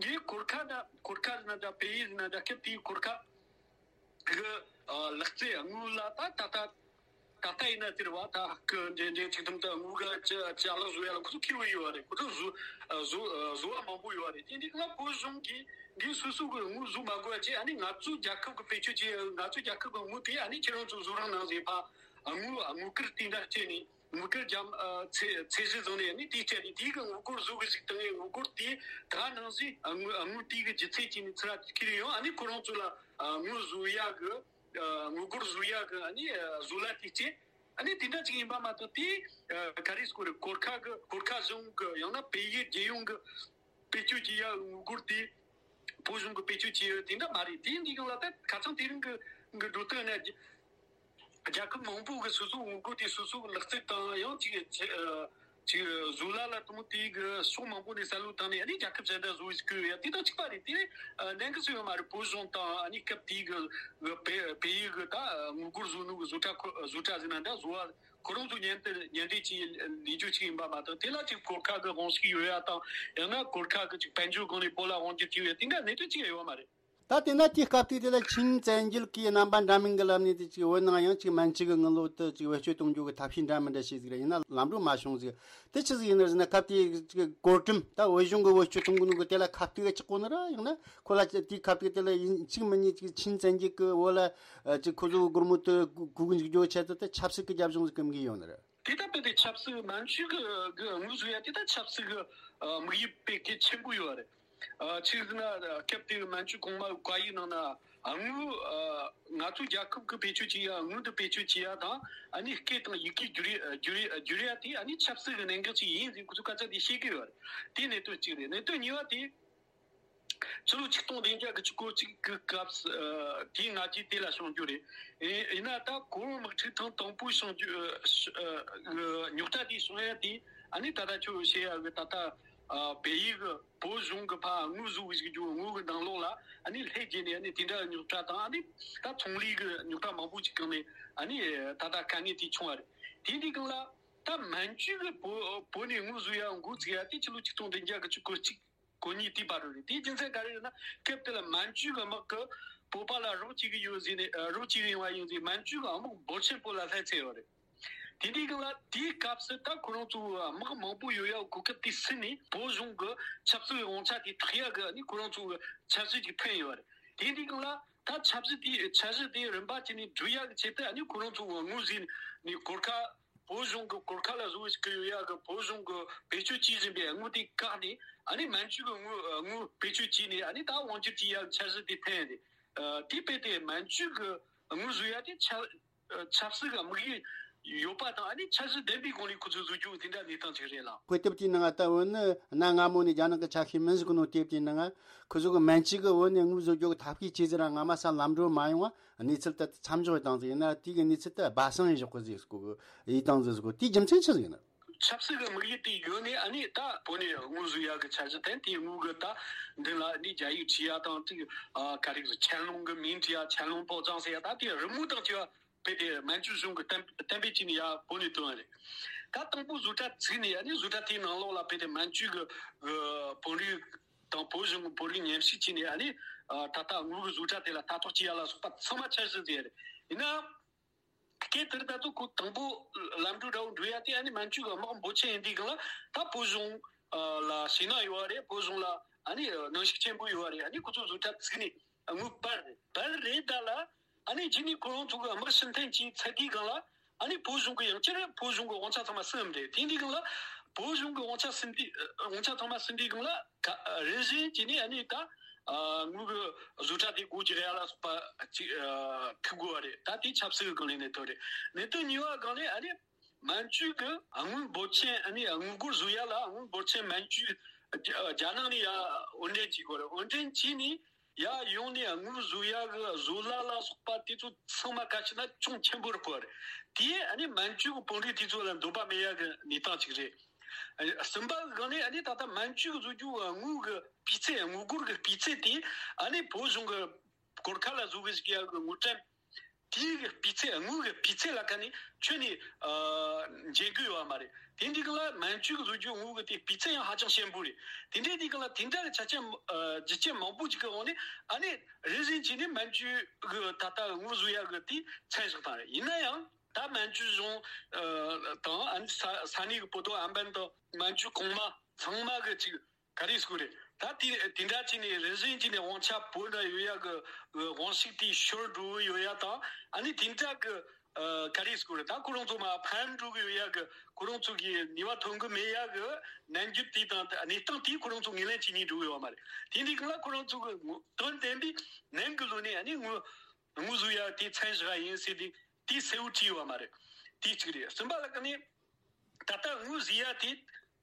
གིས་གོར་ཁ་ན་གོར་ཁ་ཟེར་ན་འདྲ། པེ་ཡི་ཟེར་ན་འདྲ། སྐབས་དེའི་གོར་ཁ་གི་ལག་རྩལ་དངུལ་ལ་ད་ད་ད་ད་ལྟ་ཡིན་ན་ཟེར་བ། ད་ཧ་གི་འདྲེ་འདྲེ་ཚིག་དུམ་དུ་དངུལ་ག་ཅི་ཅི་ཨ་ལག་བཟོ་ཡ་ལ་ཁོ་ཚོ་ཁེ་བོ་ཡོད་རེད། ཁོ་ཚོ་བཟོ་བཟོ་བཟོ་བ་མང་པོ་ཡོད་རེད། དེ་འདི་ག་ལ་བོད་གཞུང་གིས་འདི་སོ་སོ་གི་དངུལ་བཟོ་མ་དགོས་ཅེས། ཨ་ནི་ང་ཚོ་རྒྱལ་ཁབ་གི་བེད་སྤྱོད་ཅེས། ང་ཚོ་རྒྱལ་ཁབ་གི་དངུལ་དེ་ཨ་ནི་ཁྱེད་རང་ཚོ་བཟོ་རོགས་གནང་ཟེར་ཕ་དངུལ་དངུལ་སྐར་དེ་འདྲ་སྤྲད་ནས། དངུལ་སྐར་རྒྱ་ཨ་ཚད་ཚད་གཞི་བཟུང་ནས་ནི་དེའི་སྤྱད་དེ་དེའི་གི་དངུལ་སྒོར་བཟོ་གི་ཞིག་བཏང་ངས། དངུལ་སྒོར་དེ་ད་ནང་བཞིན་དངུལ་དངུལ་དེའི་གི་ལྗིད་ཚད་ཅིག་ནི་ཚུར་ཁྱེར་ཡོང་། ཨ་ནི་ཁོ་རང་ཚོ་ལ་དངུལ་བཟོ་ཡ་གི་དངུལ་སྒོར་བཟོ་ཡ་གི་ཨ་ནི་བཟོ་ལས་དེ་སྤྱད། ཨ་ནི་དེ་འདྲ་ཅིག་ཡིན་པ་མ་གཏོགས། དེ་ག་རེ་སྐོར་གོར་ཁ་གི་གོར་ཁ་གཞུང་གི་ཡང་ན་བལ་ཡུལ་རྒྱལ་ཡོངས་གི་བེད་སྤྱོད་བྱེད་ཡ་དངུལ་སྒོར་དེ་བོད་གཞུང་གི་བེད་སྤྱོད་བྱེད་ཡ་དེ་འདྲ་མ་རེད། དེ་འདི་གང་ལ་ད་ཁ་སང་དེ་རིང་གི་གི་འགྲོ་སྟངས་ནི། རྒྱལ་ཁབ་མང་པོ་གི་སོ་སོའི་དངུལ་སྒོར་དེ་སོ་སོའི་ལག་རྩལ་དང་ཡང་ཅིག་ཅིག་ཅིག་བཟོ་ལས་ལ་དང་དེའི་གི་ཕྱོགས་མང་པོ་ནས་བསམ་བློ་བཏང་ནས། ཨ་ནི་རྒྱལ་ཁབ་གཞན་དག་བཟོ་བའི་སྐོར་ཡ་དེ་དང་གཅིག་པ་རེད། དེ་ནས་ལན་གི་སུ་ཡོད་མ་རེད། བོད་གཞུང་དང་ཨ་ནི་སྐབས་དེའི་གི་གི་བལ་བལ་ཡུལ་གི་ད་དངུལ་སྒོར་བཟོ་ནོ་གི་བཟོ་གྲྭ་ཁོ་བཟོ་གྲྭ་ཟེར་ན་འདྲ། བཟོ་བ་ཁོ་རང་ཚོ་ཉན་དེ་ཉན་དེ་ཅིག་ལས་རྒྱུ་ཅིག་ཡིན་པ་མ་གཏོགས། དེ་ལ་ཅིག་གོར་ཁ་གི་དབང་ཤུགས་ཡོད་ཡ་དང་། ཡང་ན་གོར་ཁ་གི་ཅིག་དཔལ་འབྱོར་སྒང་ནས་བོད་ལ་དབང་སྒྱུར་བྱས་ཡོད་ཡ་དེ་འདྲ་གནད་དོན་ཅིག་ཡང་ཡོད་མ་རེད། ད་དེ་ན་དེའི་སྐབས་དུས་དེ་ལ་ཆིན་བཙན་རྒྱལ་གྱི་རྣམ་པ་འདྲ་མིན་གྱི་ལམ་ནས་དེ་ཅིག་བོད་ནང་ཡང་ཅིག་མན་ཇུ་གི་དངུལ་ལོར་དུ་ཅིག་བེད་སྤྱོད་གཏོང་རྒྱུ་གི་ཐབས་ཤེས་འདྲ་མི་འདྲ་བྱས་ཟིག་ར། ཡིན་ན་ལམ་འགྲོ་མ་བྱུང་ཟིག། དེ་ཆི་ཟིག་ཡིན་ནི་ཟེར་ན། སྐབས་དེའི་ཅིག་གོ་རིམ་ད་བོད་གཞུང་གི་བེད་སྤྱོད་གཏོང་གི་ནོ་གི་དེ་ལ་ཁ་གཏད་ཆགས་གོ་ནི་ར། ཡང་ན་ཁོ་ལ་དེའི་སྐབས་དུས་དེ་ལ་ཡིན་གཅིག་མིན་གཉིས་ཅིག་ཆིན་བཙན་རྒྱལ་གྱི་བོད་ལ་ཅིག་ཁོ་ཚོ་སྒོར་མོ་དུ་གུ་གུ་འཇུག་རྒྱུ་ཆེད་དུ་དེ་ཆབ་སྲིད་ཀྱི་རྒྱབ་ལྗོངས་ཟིག་གི་མིག་ཡོད་ནི་ར། དེ་ལྟ་བུ་དེ་ཆབ་སྲིད་མན་ཇུ་གི་གི་དངུལ་བཟོ་ཡ་དེ་ད་ཆབ་སྲིད་གི་དམིགས་ཡུལ་དཔེ་གལ་ཆེན་པོ་ཡོད་རེད། ཆི་ཟེར་ན་སྐབས་དེ་མན་ཇུ་གོང་མ་བཀའ་ཡིག་ནང་ན་དངུལ་ང་ཚོ་རྒྱལ་ཁབ་ཀྱི་བེད་སྤྱོད་བྱེད་ཡ་དངུལ་དུ་བེད་སྤྱོད་བྱེད་ཡ་དང་ཨ་ནི་སྐད་དང་ཡི་གེ་བསྒྱུར་ཡ་བསྒྱུར་ཡ་བསྒྱུར་ཡ་དེ་ཨ་ནི་ཆབ་སྲིད་ཀྱི་གནད་འགག་ཅིག་ཡིན་ཟེར་ཁོ་ཚོ་སྐད་ཆ་དེ་བཤད་ཀྱི་ཡོད་རེད། དེ་གནད་དོན་གཅིག་རེད། གནད་དོན་གཉིས་པ་དེ། ཕྱི་ལོ་ཆིག་སྟོང་བདུན་བརྒྱ་དགུ་བཅུ་གོ་གཅིག་གི་སྐབས་སུ་དེའི་སྔ་རྗེས་དེ་ལ་བྱུང་རྒྱུ་རེད། ཡིན་ན་ད་གོ་བོད་དམག་འཁྲུག་ཐེངས་དང་པོའི་བྱུང་རྒྱུ་རྙོག་དྲ་དེ་བྱུང་ཡ་དེ་ཨ་ནི་ད་ལྟ་ཁྱོད་བཤད་ཡ་གི་ད་ལྟ་བལ་ཡུལ་གི་བོད་གཞུང་གི་ཕར་དངུལ་བཟོ་གི་བཞག་རྒྱུ་དངུལ་གི་ནང་ལོགས་ལ་ཨ་ནི་ལྷད་རྒྱས་ནས་ཨ་ནི་དེ་འདྲ་རྙོག་དྲ་དང་ཨ་ནི་ད་ཚོང་ལས་གི་རྙོག་དྲ་མང་པོ་ཅིག་སྒང་ནས་ཨ་ནི་ད་ལྟ་དཀའ་ངལ་དེ་བྱུང་བ་རེད། དེ་འདི་སྒང་ལ་ད་མན་ཇུ་གི་བོད་བོད་ནས་དངུལ་བཟོ་ཡ་འགོ་བཙུགས་ཡ་དེ་ཕྱི་ལོ་ཆིག་སྟོང་བདུན་བརྒྱ་དགུ་བཅུ་གོ་གཅིག་གོ་གཉིས་དེའི་བར་དུ་རེད། དེའི་རྒྱུ་མཚན་ག་རེ་རེད་ན་སྐབས་དེ་ལ་མན་ཇུ་གི་དམག་གི་བོད་པ་ལ་རོགས་བྱེད་གི་ཡོད་ཟེར་ནས་རོགས་བྱེད་གི་ཡོང་བ་ཡིན་ཟེར་མན་ཇུ་གི་དམག་འབོར་ཆེན་པོ་ལ་ལྷད་ཚད་ཡོད་རེད། དེ་འདྲའི་སྒང་ལ་དེའི་སྐབས་སུ་ད་ཁོ་རང་ཚོ་དམག་མང་པོ་ཡོད་ཡ་གོ་སྐབས་དེ་ཟིན་ནས་བོད་གཞུང་གི་ཆབ་སྲིད་དབང་ཆ་དེ་ཐག་ཡ་གི་ནི་ཁོ་རང་ཚོ་གི་འཆར་གཞི་ཅིག་འཐེན་ཡོད་རེད། དེ་འདྲའི་སྒང་ལ་ད་ཆབ་སྲིད་དེ་འཆར་གཞི་དེ་རིམ་པ་བྱས་ནས་བསྒྲུབ་ཡ་གི་ཆེད་དུ་ནི་ཁོ་རང་ཚོ་དངོས་ཟིན་ནས་གོར་ཁ་བོད་གཞུང་གི་གོར་ཁ་ལ་བཟོ་བའི་སྐུ་ཡོད་ཡ་གི་བོད་གཞུང་གི་བེད་སྤྱོད་བྱེད་བཞིན་པའི་དངུལ་དེ་བཀག་ནས་ཨ་ནི་མན་ཇུ་གི་དངུལ་དངུལ་བེད་སྤྱོད་བྱས་ནས་ཨ་ནི་ད་དབང་སྒྱུར་བྱེད་ཡ་གི་འཆར་གཞི་དེ་འཐེན་ཏེ། དེ་དཔེ་དེ་མན་ཇུ་གི་དངུལ་བཟོ་ཡ་དེ་ཆབ་ཆབ་སྲིད་ཀྱི་དམིགས་ཡུལ་ཡོད་པ་དང་ཨ་ནི་འཆར་གཞི་ལྡན་པའི་སྒོ་ནས་ཁོ་ཚོས་བཟོ་རྒྱུ་དེ་འདྲ་གནས་སྟངས་ཅིག་རེད་ལགས། དཔེ་དེབ་དེའི་ནང་ད་བོད་ནི་གནའ་སྔ་མོ་ནས་རྒྱ་ནག་གི་ཆ་ཤས་མིན་ཟེར་གོ་ནོ་དེབ་དེའི་ནང་ཁོ་ཚོ་གི་མན་ཇུ་གི་བོད་ནས་དངུལ་བཟོ་རྒྱུ་གི་ཐབས་ཤེས་བྱས་ཟིན་ར་སྔ་མ་ས་ལམ་འགྲོ་མ་ཡོང་བ། གནས་ཚུལ་དེ་མཚམས་འཇོག་བཏང་ཟིག་ཡིན་ན་དེ་གི་གནས་ཚུལ་དེ་སྦ་གསང་ཡིན་ཞོག་གི་ཟིག་སྐོར་གི་ཡིད་བཏང་ཟིག་སྐོར་དེའི་རྒྱུ་མཚན་ཆི་ཟིག་ཡིན་ན། ཆབ་སྲིད་ཀྱི་དམིགས་ཡུལ་དེ་ཡོད་ནས་ཨ་ནི་ད་བོད་ནས་དངུལ་བཟོ་ཡག་གི་འཆར་གཞི་དེ་དེའི་དངུལ་གི་ད་མདུན་ལ་ནི་རྒྱ་ཡིག་བྲིས་ཡ་དང་དེ་ག་རེ་ཟེར་ཆན་ལུང་གི་མིང་བྲིས་ཡ་ཆན་ལུང་ཕོ་བྲང་ཟེར་ཡ་ད་དེ་རི་མོ་དང་བཅས་པ་དཔེ་དེ་མན་ཇུ་གཞུང་གི་གཏན་གཏན་འབེབས་བྱས་ནས་ཡ་བོད་ནས་བཏོན་པ་རེད། ད་དང་པོ་བཟོ་གྲྭ་བཙུགས་ནས་ཨ་ནི་བཟོ་གྲྭ་དེའི་ནང་ལོགས་ལ་དཔེ་དེ་མན་ཇུ་གི་བོད་རིགས་དང་བོད་གཞུང་གི་བོད་རིགས་མཉམ་ཞུགས་བྱས་ནས་ཨ་ནི་ད་ལྟ་དངུལ་གི་བཟོ་གྲྭ་དེ་ལ་ལྟ་རྟོག་བྱེད་ཡ་ལ་སོགས་པ་ཚང་མ་འཆར་གཞི་བཟོས་ཡ་རེད། ཡིན་ན། སྐབས་དེར་ད་དུང་ཁོ་དང་པོ་ལམ་འགྲོ་འདྲ་བོ་འགྲོ་ཡ་དེ་ཨ་ནི་མན་ཇུ་གི་དམག་འབོར་ཆེན་ཡིན་དུས་སྒང་ལ་ད་བོད་གཞུང་ལ་ཞེད་སྣང་ཡོད་བ་རེད། བོད་གཞུང་ལ་ཨ་ནི་གནོན་ཤུགས་ཆེན་པོ་ཡོད་བ་རེད། ཨ་ནི་ཁོ་ཚོ་བཟོ་གྲྭ་བཙུགས་ནས་དངུལ་སྤར་རེད་སྤར་རེད་ད་ལ་ཨ་ནི་རྗེས་ནས་ཁོ་རང་ཚོ་གི་དམག་ཕྱིར་འཐེན་གྱིས་ཚར་དུས་སྒང་ལ་ཨ་ནི་བོད་གཞུང་གི་ཡང་བསྐྱར་བོད་གཞུང་གི་དབང་ཆ་ཚང་མ་ཟིན་རེད། དེ་འདི་སྒང་ལ་བོད་གཞུང་གི་དབང་ཆ་ཟིན་དུས་དབང་ཆ་ཚང་མ་ཟིན་དུས་སྒང་ལ་རིམ་བཞིན་གྱིས་ནི་ཨ་ནི་ད་དངུལ་གི་བཟོ་གྲྭ་དེ་སྒོ་རྒྱག་ཡ་ལ་སོགས་པ་ཅིག་ཐུག་དགོས་བ་རེད། ད་དེ་ཆབ་སྲིད་ཀྱི་སྒང་ལ་གནད་དོན་རེད། གནད་དོན་གཉིས་པ་སྒང་ལ་ཨ་ནི་མན་ཇུ་གི་དངུལ་འབོར་ཆེན་ཨ་ནི་དངུལ་སྒོར་བཟོ་ཡ་ལ་དངུལ་འབོར་ཆེན་མན་ཇུ་རྒྱ་ནག་ནས་ཡ་དབོར་འདྲེན་བྱེད་དགོས་རེད། དབོར་འདྲེན་བྱས་ནས་ཡ་ཡོང་ནས་དངུལ་བཟོ་ཡ་གི་བཟོ་གླ་ལ་སོགས་པ་དེ་ཚོ་ཚང་མ་ག་ཅི་ན་ཅུང་ཆེན་པོ་རེད་པ་རེད། དེས་ཨ་ནི་མན་ཇུ་གི་དཔོན་རིགས་དེ་ཚོ་ལ་འདོད་པ་མེད་ཡ་གི་གནས་སྟངས་ཅིག་རེད། གསུམ་པ་གི་སྒང་ནས་ཨ་ནི་ད་ལྟ་མན་ཇུ་གི་བཟོ་རྒྱུ་དངུལ་གི་སྤུས་ཚད་དངུལ་སྒོར་གི་སྤུས་ཚད་དེ་ཨ་ནི་བོད་གཞུང་གི་གོར་ཁ་ལ་བཟོ་གི་ཞིག་ཡ་གི་དངུལ་ཀྲམ་དེའི་གི་སྤུས་ཚད་དངུལ་གི་སྤུས་ཚད་ལ་ཁ་ནས་ཁྱོན་ནས་འཇལ་གི་ཡོད་བ་མ་རེད། དེ་འདི་གི་ལ་མན་ཇུ་གི་བཟོ་རྒྱུ་དངུལ་གི་དེ་སྤུས་ཚད་ཡང་ཧ་ཅང་ཞན་པོ་རེད། དེ་འདྲའི་འདི་གི་ལ་དེ་འདྲ་གི་ཆ་རྐྱེན་རྒྱུ་རྐྱེན་མང་པོ་ཅིག་གི་འོག་ནས་ཨ་ནི་རེ་བཞིན་བྱས་ནས་མན་ཇུ་གི་ད་ལྟ་དངུལ་བཟོ་ཡ་གི་དེ་མཚམས་བཞག་བཏང་རེད། ཡིན་ན་ཡང་ད་མན་ཇུ་གཞུང་དང་ཨ་ནི་ས་ས་གནས་གི་བོད་དོ་ཨམ་བན་དང་མན་ཇུ་གོང་མ་ཚང་མ་གི་ཅིག་ག་རེ་ཟེར་དགོས་རེད། ད་དེ་དེ་འདྲ་བྱས་ནས་རེ་བཞིན་བྱས་ནས་དབང་ཆ་བོད་ན་ཡོད་ཡ་གི་དབང་ཤུགས་དེ་ཤོར་འགྲོ་གི་ཡོད་ཡ་དང་ཨ་ནི་དེ་འདྲ་གི་ག་རེ་ཟེར་དགོས་རེད། ད་ཁོ་རང་ཚོ་མར་ཕམ་འགྲོ་གི་ཡོད་ཡ་གི་ཁོ་རང་ཚོ་གི་ནུས་པ་ཐོན་གི་མེད་ཡ་གི་ནམ་རྒྱུན་དེ་དང་གནས་སྟངས་དེ་ཁོ་རང་ཚོ་ངོས་ལེན་བྱེད་སྙིང་འདོད་ཡོད་མ་རེད། དེ་འདི་གང་ལ་ཁོ་རང་ཚོ་གི་དོན་བདེན་པའི་ནང་གི་ལོ་ནས་ཨ་ནི་དངུལ་དངུལ་བཟོ་ཡ་དེ་མཚམས་བཞག་ཡིན་ཟེར་དེ་དེ་གསལ་བོ་བྲིས་ཡོད་མ་རེད། དེ་གཅིག་རེད། གསུམ་པ་ལ་ཀ་ནི། ད་ལྟ་དངུལ་བཟོ་ཡ་དེ་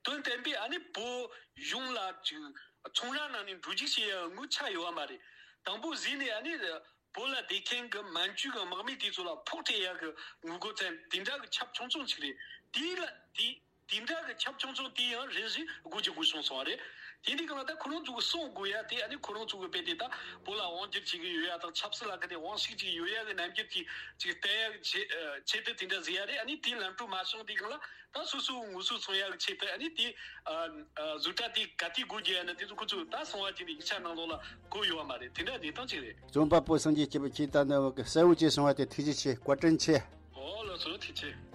དོན་བདེན་པའི་ཨ་ནི་བོད་གཞུང་ལ་ཅིག་ཚོང་ར་ནང་ནས་འགྲོ་རྒྱུག་བྱེད་ཡ་དངུལ་ཆག་ཡོད་བ་མ་རེད། དང་པོ་བཟོས་ནས་ཨ་ནི་བོད་ལ་བསྡད་མཁན་གྱི་མན་ཇུ་གི་དམག་མི་དེ་ཚོ་ལ་ཕོག་སྤྲད་ཡ་གི་དངུལ་སྒོར་ཙམ་དེ་འདྲ་གི་ཁྱབ་ཆུང་ཆུང་ཅིག་རེད། དེ་ལ་དེ་ དེ་འདྲ་གི་ཁྱབ་ཆུང་ཆུང་དེ་ཡང་རེ་བཞིན་དགོས་ཀྱི་དགོས་བྱུང་སོང་བ་རེད། དེ་འདི་གང་ལ་ད་ཁོ་རང་ཚོ་གི་གསུང་དགོས་ཡ་དེ། ཨ་ནི་ཁོ་རང་ཚོ་གི་དཔེ་དེ་ད་བོད་ལ་དབང་སྒྱུར་བྱེད་ཀྱི་ཡོད་ཡ་དང་ཆབ་སྲིད་ལ་ག་དེ་དབང་ཤུགས་ཅིག་ཡོད་ཡ་གི་རྣམ་འགྱུར་གྱི་ཅིག་བསྟན་ཡ་གི་ཆེད་ཆེད་དུ་དེ་འདྲ་ཟེར་ཡ་རེད། ཨ་ནི་དེའི་ལམ་འགྲོ་མ་བྱུང་དེ་གང་ལ་ད་སོ་སོའི་ངོ་སོ་མཚོན་ཡ་གི་ཆེད་དུ། ཨ་ནི་དེ་བཟོ་གྲྭ་དེ་ག་དུས་སྒོ་རྒྱག་ཡ་ན་དེ་ཚོ་ཁོ་ཚོས་ད་གསང་བ་བྱས་ནས་ཡིག་ཆ་ནང་ལོགས་ལ་བཀོད་ཡོད་བ་མ་རེད། དེ་འདྲ་གནས་སྟངས་ཅིག་རེད། རྩོམ་པ་པོ་སངས་རྒྱས་སྐྱིད་པོ། ཁྱེད་ད་ནི་གསལ་བོ་བྱས་གསུང་བ་དེ་ཐུགས་རྗེ་ཆེ། བཀའ་དྲིན་ཆེ། ཨོ་ལགས་སོ། ཐུགས་རྗེ་ཆེ།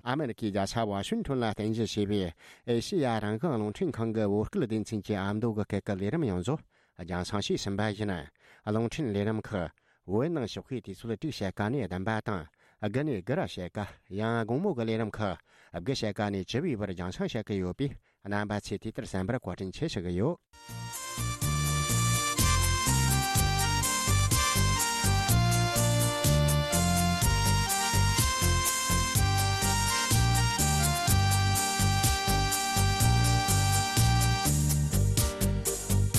ཨ་མེ་རི་ཁའི་རྒྱལ་ས་ཝ་ཤིང་ཊོན་ལ་རྟེན་གཞི་བྱས་པའི་ཨེ་ཤེ་ཡ་རང་དབང་རླུང་འཕྲིན་ཁང་གི་བོད་སྐད་སྡེ་ཚན་གྱི་ཨ་མདོ་གི་སྐད་ཀྱི་ལས་རིམ་ཡོངས་རྫོགས་རྒྱང་སྲིང་བྱས་ཟིན་པ་ཡིན། རླུང་འཕྲིན་ལས་རིམ་ཁག་བོད་ནང་ཞོགས་ཀའི་དུས་ཚོད་དྲུག་ཕྱེད་ཀ་ནས་བདུན་པ་དང་། དགུ་ནས་དགུ་ར་ཕྱེད་ཀ། ཡང་དགོང་མོ་གི་ལས་རིམ་ཁག་དགུ་ཕྱེད་ཀ་ནས་བཅུ་པའི་བར་རྒྱང་སྲིང་བྱེད་ཀྱི་ཡོད་པས། རྣམ་པ་ཚོས་དུས་ལྟར་གསན་པར་བཀའ་དྲིན་ཆེ་ཞུ་གི་ཡོད།